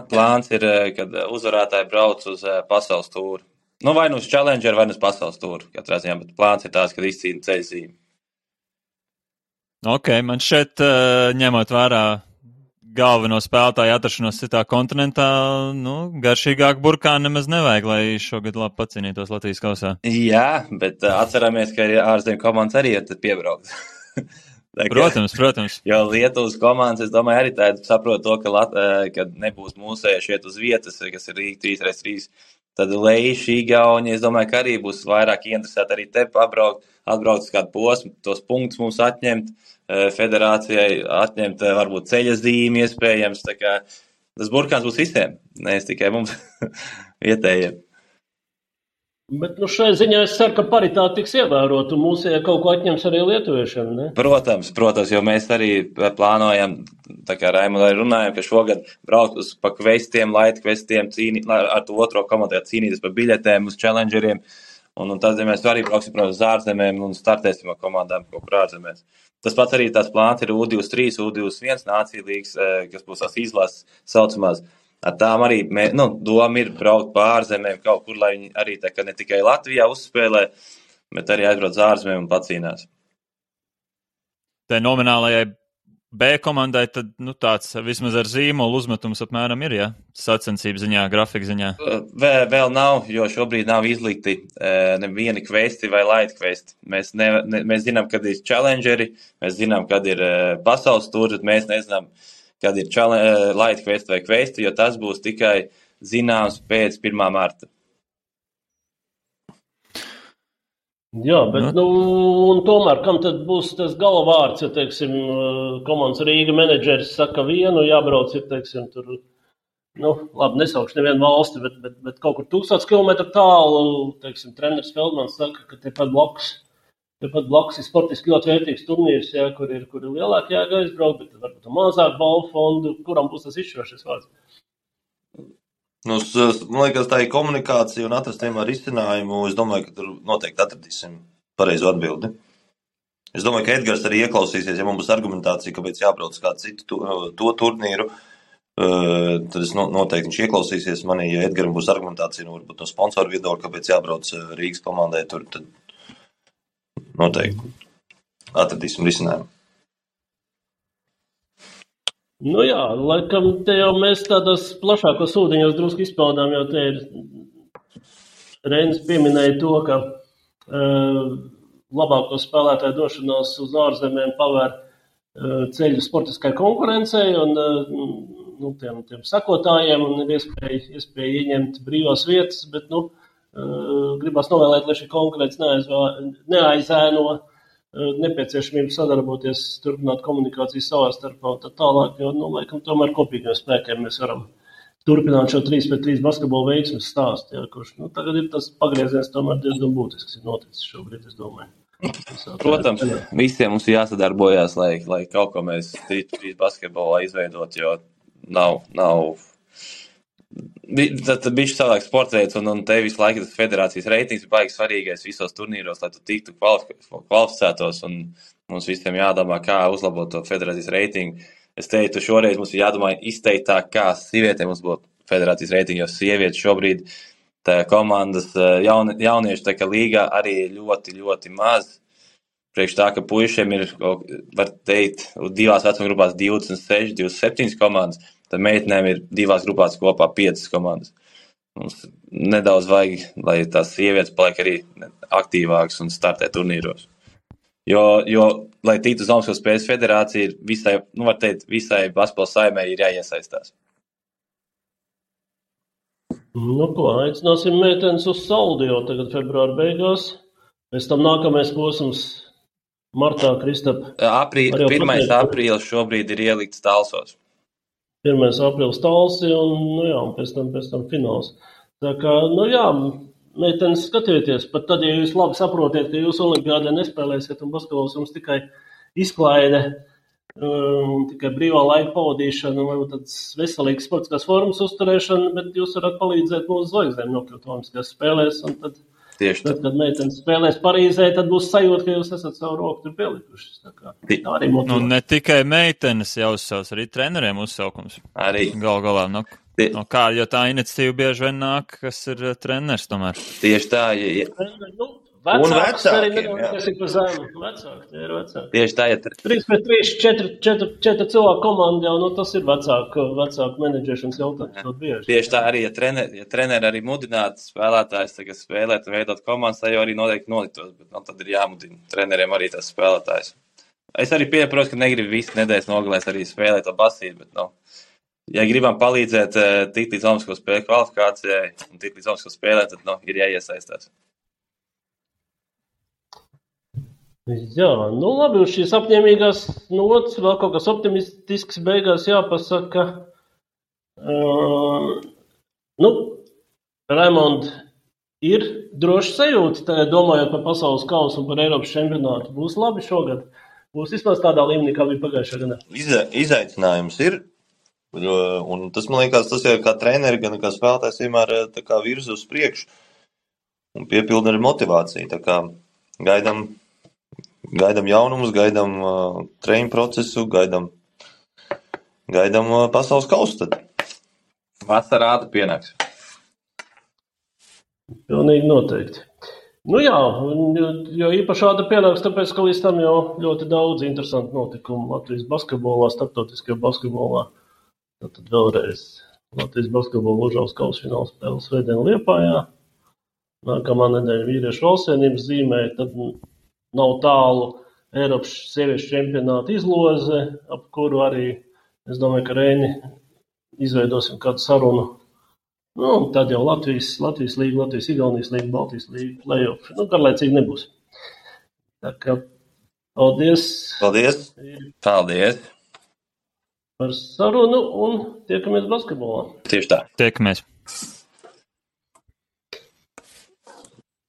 Plāns ir, kad uzvarētāji brauc uz pasaules tūru. Vai nu uz Challenger, vai nu uz pasaules tūru, katrā ziņā, bet plāns ir tāds, kad izcīna ceļzīmi. Ok, man šeit ņemot vērā galveno spēlētāju atrašanos citā kontinentā, garšīgāk burkāni nemaz nevajag, lai šogad labi pacīnītos Latvijas kausā. Jā, bet atceramies, ka ārzemju komandas arī ir piebraukt. Protams. Jo Lietuvas komandas, es domāju, arī tā saprot to, ka nebūs mūsējuši iet uz vietas, kas ir Rīga 3x3. Tad Leiši, Igauņi, es domāju, ka arī būs vairāk interesēti arī te atbraukt uz kādu posmu, tos punktus mums atņemt, federācijai atņemt varbūt ceļa zīmi iespējams, tā kā tas burkāns būs visiem, nevis tikai mums vietējiem. Bet šai ziņā es ceru, ka paritāte tiks ievērota un mūsējā kaut ko atņems arī lietuviešiem, ne? Protams, jo mēs arī plānojam, tā kā Raimonda arī runājam, ka šogad braukt uz pa kvestiem, light kvestiem, ar to otro komandu cīnīties par biļetēm uz challengeriem, un tad mēs arī brauksim, protams, uz ārzemēm un startēsim ar komandām kaut kur ārzemēs. Tas pats arī tās plāns ir U23, U21 nācija līgas, kas būs tās izlases saucamās. Ar tām arī doma ir braukt pa ārzemēm kaut kur, lai viņi arī tā kā ne tikai Latvijā uzspēlē, bet arī aizbrauc uz ārzemēm un pacīnās. Tā nominālajai B komandai tad tāds vismaz ar zīmolu uzmetums apmēram ir, ja? Sacensību ziņā, grafika ziņā. Vēl nav, jo šobrīd nav izlikti nevieni kvesti vai light kvesti. Mēs zinām, kad ir challengeri, mēs zinām, kad ir pasaules tūri, bet mēs nezinām, kad ir light kvesti vai kvesti, jo tas būs tikai zināms pēc 1. marta. Jā, bet un tomēr, kam tad būs tas galvārds, ja, teiksim, komandas Rīga menedžeris saka vienu, jābrauc ir, teiksim, tur, labi, nesaukšu nevienu valsti, bet kaut kur 1000 kilometru tālu, teiksim, treneris Feldmans saka, ka tepat blakus ir sportiski ļoti vērtīgs turnīrs, jā, kur ir lielāk jāga aizbraukt, bet varbūt mazāk balvu fondu, kuram būs tas izšķirošais vārds? Man liekas, tā ir komunikācija un atrast vienmēr risinājumu. Es domāju, ka tur noteikti atradīsim pareizo atbildi. Es domāju, ka Edgars arī ieklausīsies, ja man būs argumentācija, kāpēc jābrauc kādu citu to turnīru, tad es noteikti viņš ieklausīsies manī. Ja Edgaram būs argumentācija, varbūt no sponsoru viedokļa, kāpēc jābrauc Rīgas komandai tur, tad noteikti atradīsim risinājumu. Jā, laikam te jau mēs tādos plašākos ūdeņos drusku izpaudām, jo te ir Reinis pieminēja to, ka labāko spēlētāju došanās uz ārzemēm pavēr ceļu sportiskai konkurencei un tiem sakotājiem un ir iespēja ieņemt brīvās vietas, bet gribas novēlēt, lai šī konkurence neaizēno nepieciešamību sadarboties, turpināt komunikāciju savā starpā un tā tālāk, jo, laikam, tomēr kopīgiem spēkiem mēs varam turpināt šo 3-3 basketbola veiksmes stāstu, ja, kurš, tagad ir tas pagrieziens tomēr diezgan būtisks, ir noticis šobrīd, es domāju. Protams, visiem mums ir jāsadarbojās, lai kaut ko mēs 3-3 basketbolā izveidot, jo nav tad bišķi savādāk sports veids, un te visu laiku tas federācijas reitings ir baigi svarīgais visos turnīros, lai tu tiktu kvalificētos, un mums visiem jādomā, kā uzlabot to federācijas reitingu. Es teiktu, šoreiz mums ir jādomā izteiktāk, kā sievietēm uzlabot federācijas reitingu, jo sievietes šobrīd tā komandas jauniešu tā kā līgā arī ļoti, ļoti maz. Priekš tā, ka puišiem ir, var teikt, divās vecuma grupās 26, 27 komandas, tad meitenēm ir divās grupās kopā 5 komandas. Mums nedaudz vajag, lai tās sievietes paliek arī aktīvākas un startē turnīros. Jo lai tiktu uz Olimpiskās spēles federācija, ir visai, var teikt, visai basketbola saimē ir jāiesaistās. Aicināsim meitenes uz Saldio tagad februāra beigās. Pēc tam nākamais posms martā, Kristap. 1. aprīlis šobrīd ir ielikts Talsos. 1. aprīlis Talsi un pēc tam fināls. Tā kā, meitenes skatieties, pat tad, ja jūs labi saprotiet, ka jūs olimpiādē nespēlēsiet un basketbols jums tikai izklaide, tikai brīvā laika pavadīšana, varbūt tāds veselīgs sportiskās formas uzturēšana, bet jūs varat palīdzēt mūsu zvaigznēm nokļūt olimpiskās spēlēs, un tad, kad meitenes spēlēs Parīzē, tad būs sajūta, ka jūs esat savu roku tur pielikušas. Tā arī motivē. Ne tikai meitenes jāuzsauc, arī treneriem uzsaukums. Arī. Galā, kā, jo tā iniciatīva bieži vien nāk, kas ir treneris tomēr. Tieši tā, un vecāki, kas ir pa zemu. Vecāki. Tieši tā, 3-3, 4 cilvēku komanda jau, tas ir vecāku menedžēšanas jautājums. Tieši tā arī, ja treneri arī mudinātu spēlētājs tagad spēlēt un veidot komandas, tā jau arī noteikti noliktos, bet tad ir jāmudina treneriem arī tās spēlētājs. Es arī pieprotu, ka negribu visu nedēļas nogalēs arī spēlēt to basīti, bet ja gribam palīdzēt tikt līdz Olimpisko spēļu kvalifikācijai un tikt līdz Olimpisko spēlēm, tad ir jāiesaistās. Jā, labi, uz šīs apņēmīgās nots vēl kaut kas optimistisks beigās jāpasaka. Raimond, ir droši sajūta, domājot par pasaules kausu un par Eiropas čempionātu. Būs labi šogad? Būs vismaz tādā līmenī, kā bija pagājušā gadā? Izaicinājums ir. Un tas, man liekas, tas ir kā treneri, gan kā spēlētājs vienmēr tā kā virza uz priekšu un piepilda arī motivāciju. Tā kā gaidam jaunumus, gaidam treniņu procesu, gaidam pasaules kausu tad. Vasarā pienāks. Pilnīgi noteikti. Jo īpaši āda pienāks, tāpēc, ka līdz tam jau ļoti daudz interesantu notikumu Latvijas basketbolā, starptautiskajā basketbolā. Tad vēlreiz Latvijas basketbola Užavas kausa fināla spēle svētdien Liepājā. Nākamā nedēļa vīriešu valstsienības zīmē, tad nav tālu Eiropas sieviešu čempionāta izloze, ap kuru arī, es domāju, ka Reini izveidosim kādu sarunu. Tad jau Latvijas līga, Latvijas Igaunijas līga, Baltijas līga, play-off. Garlaicīgi nebūs. Tā kā paldies. Paldies. Par sarunu un tiekamies basketbolā. Tieši tā. Tiekamies.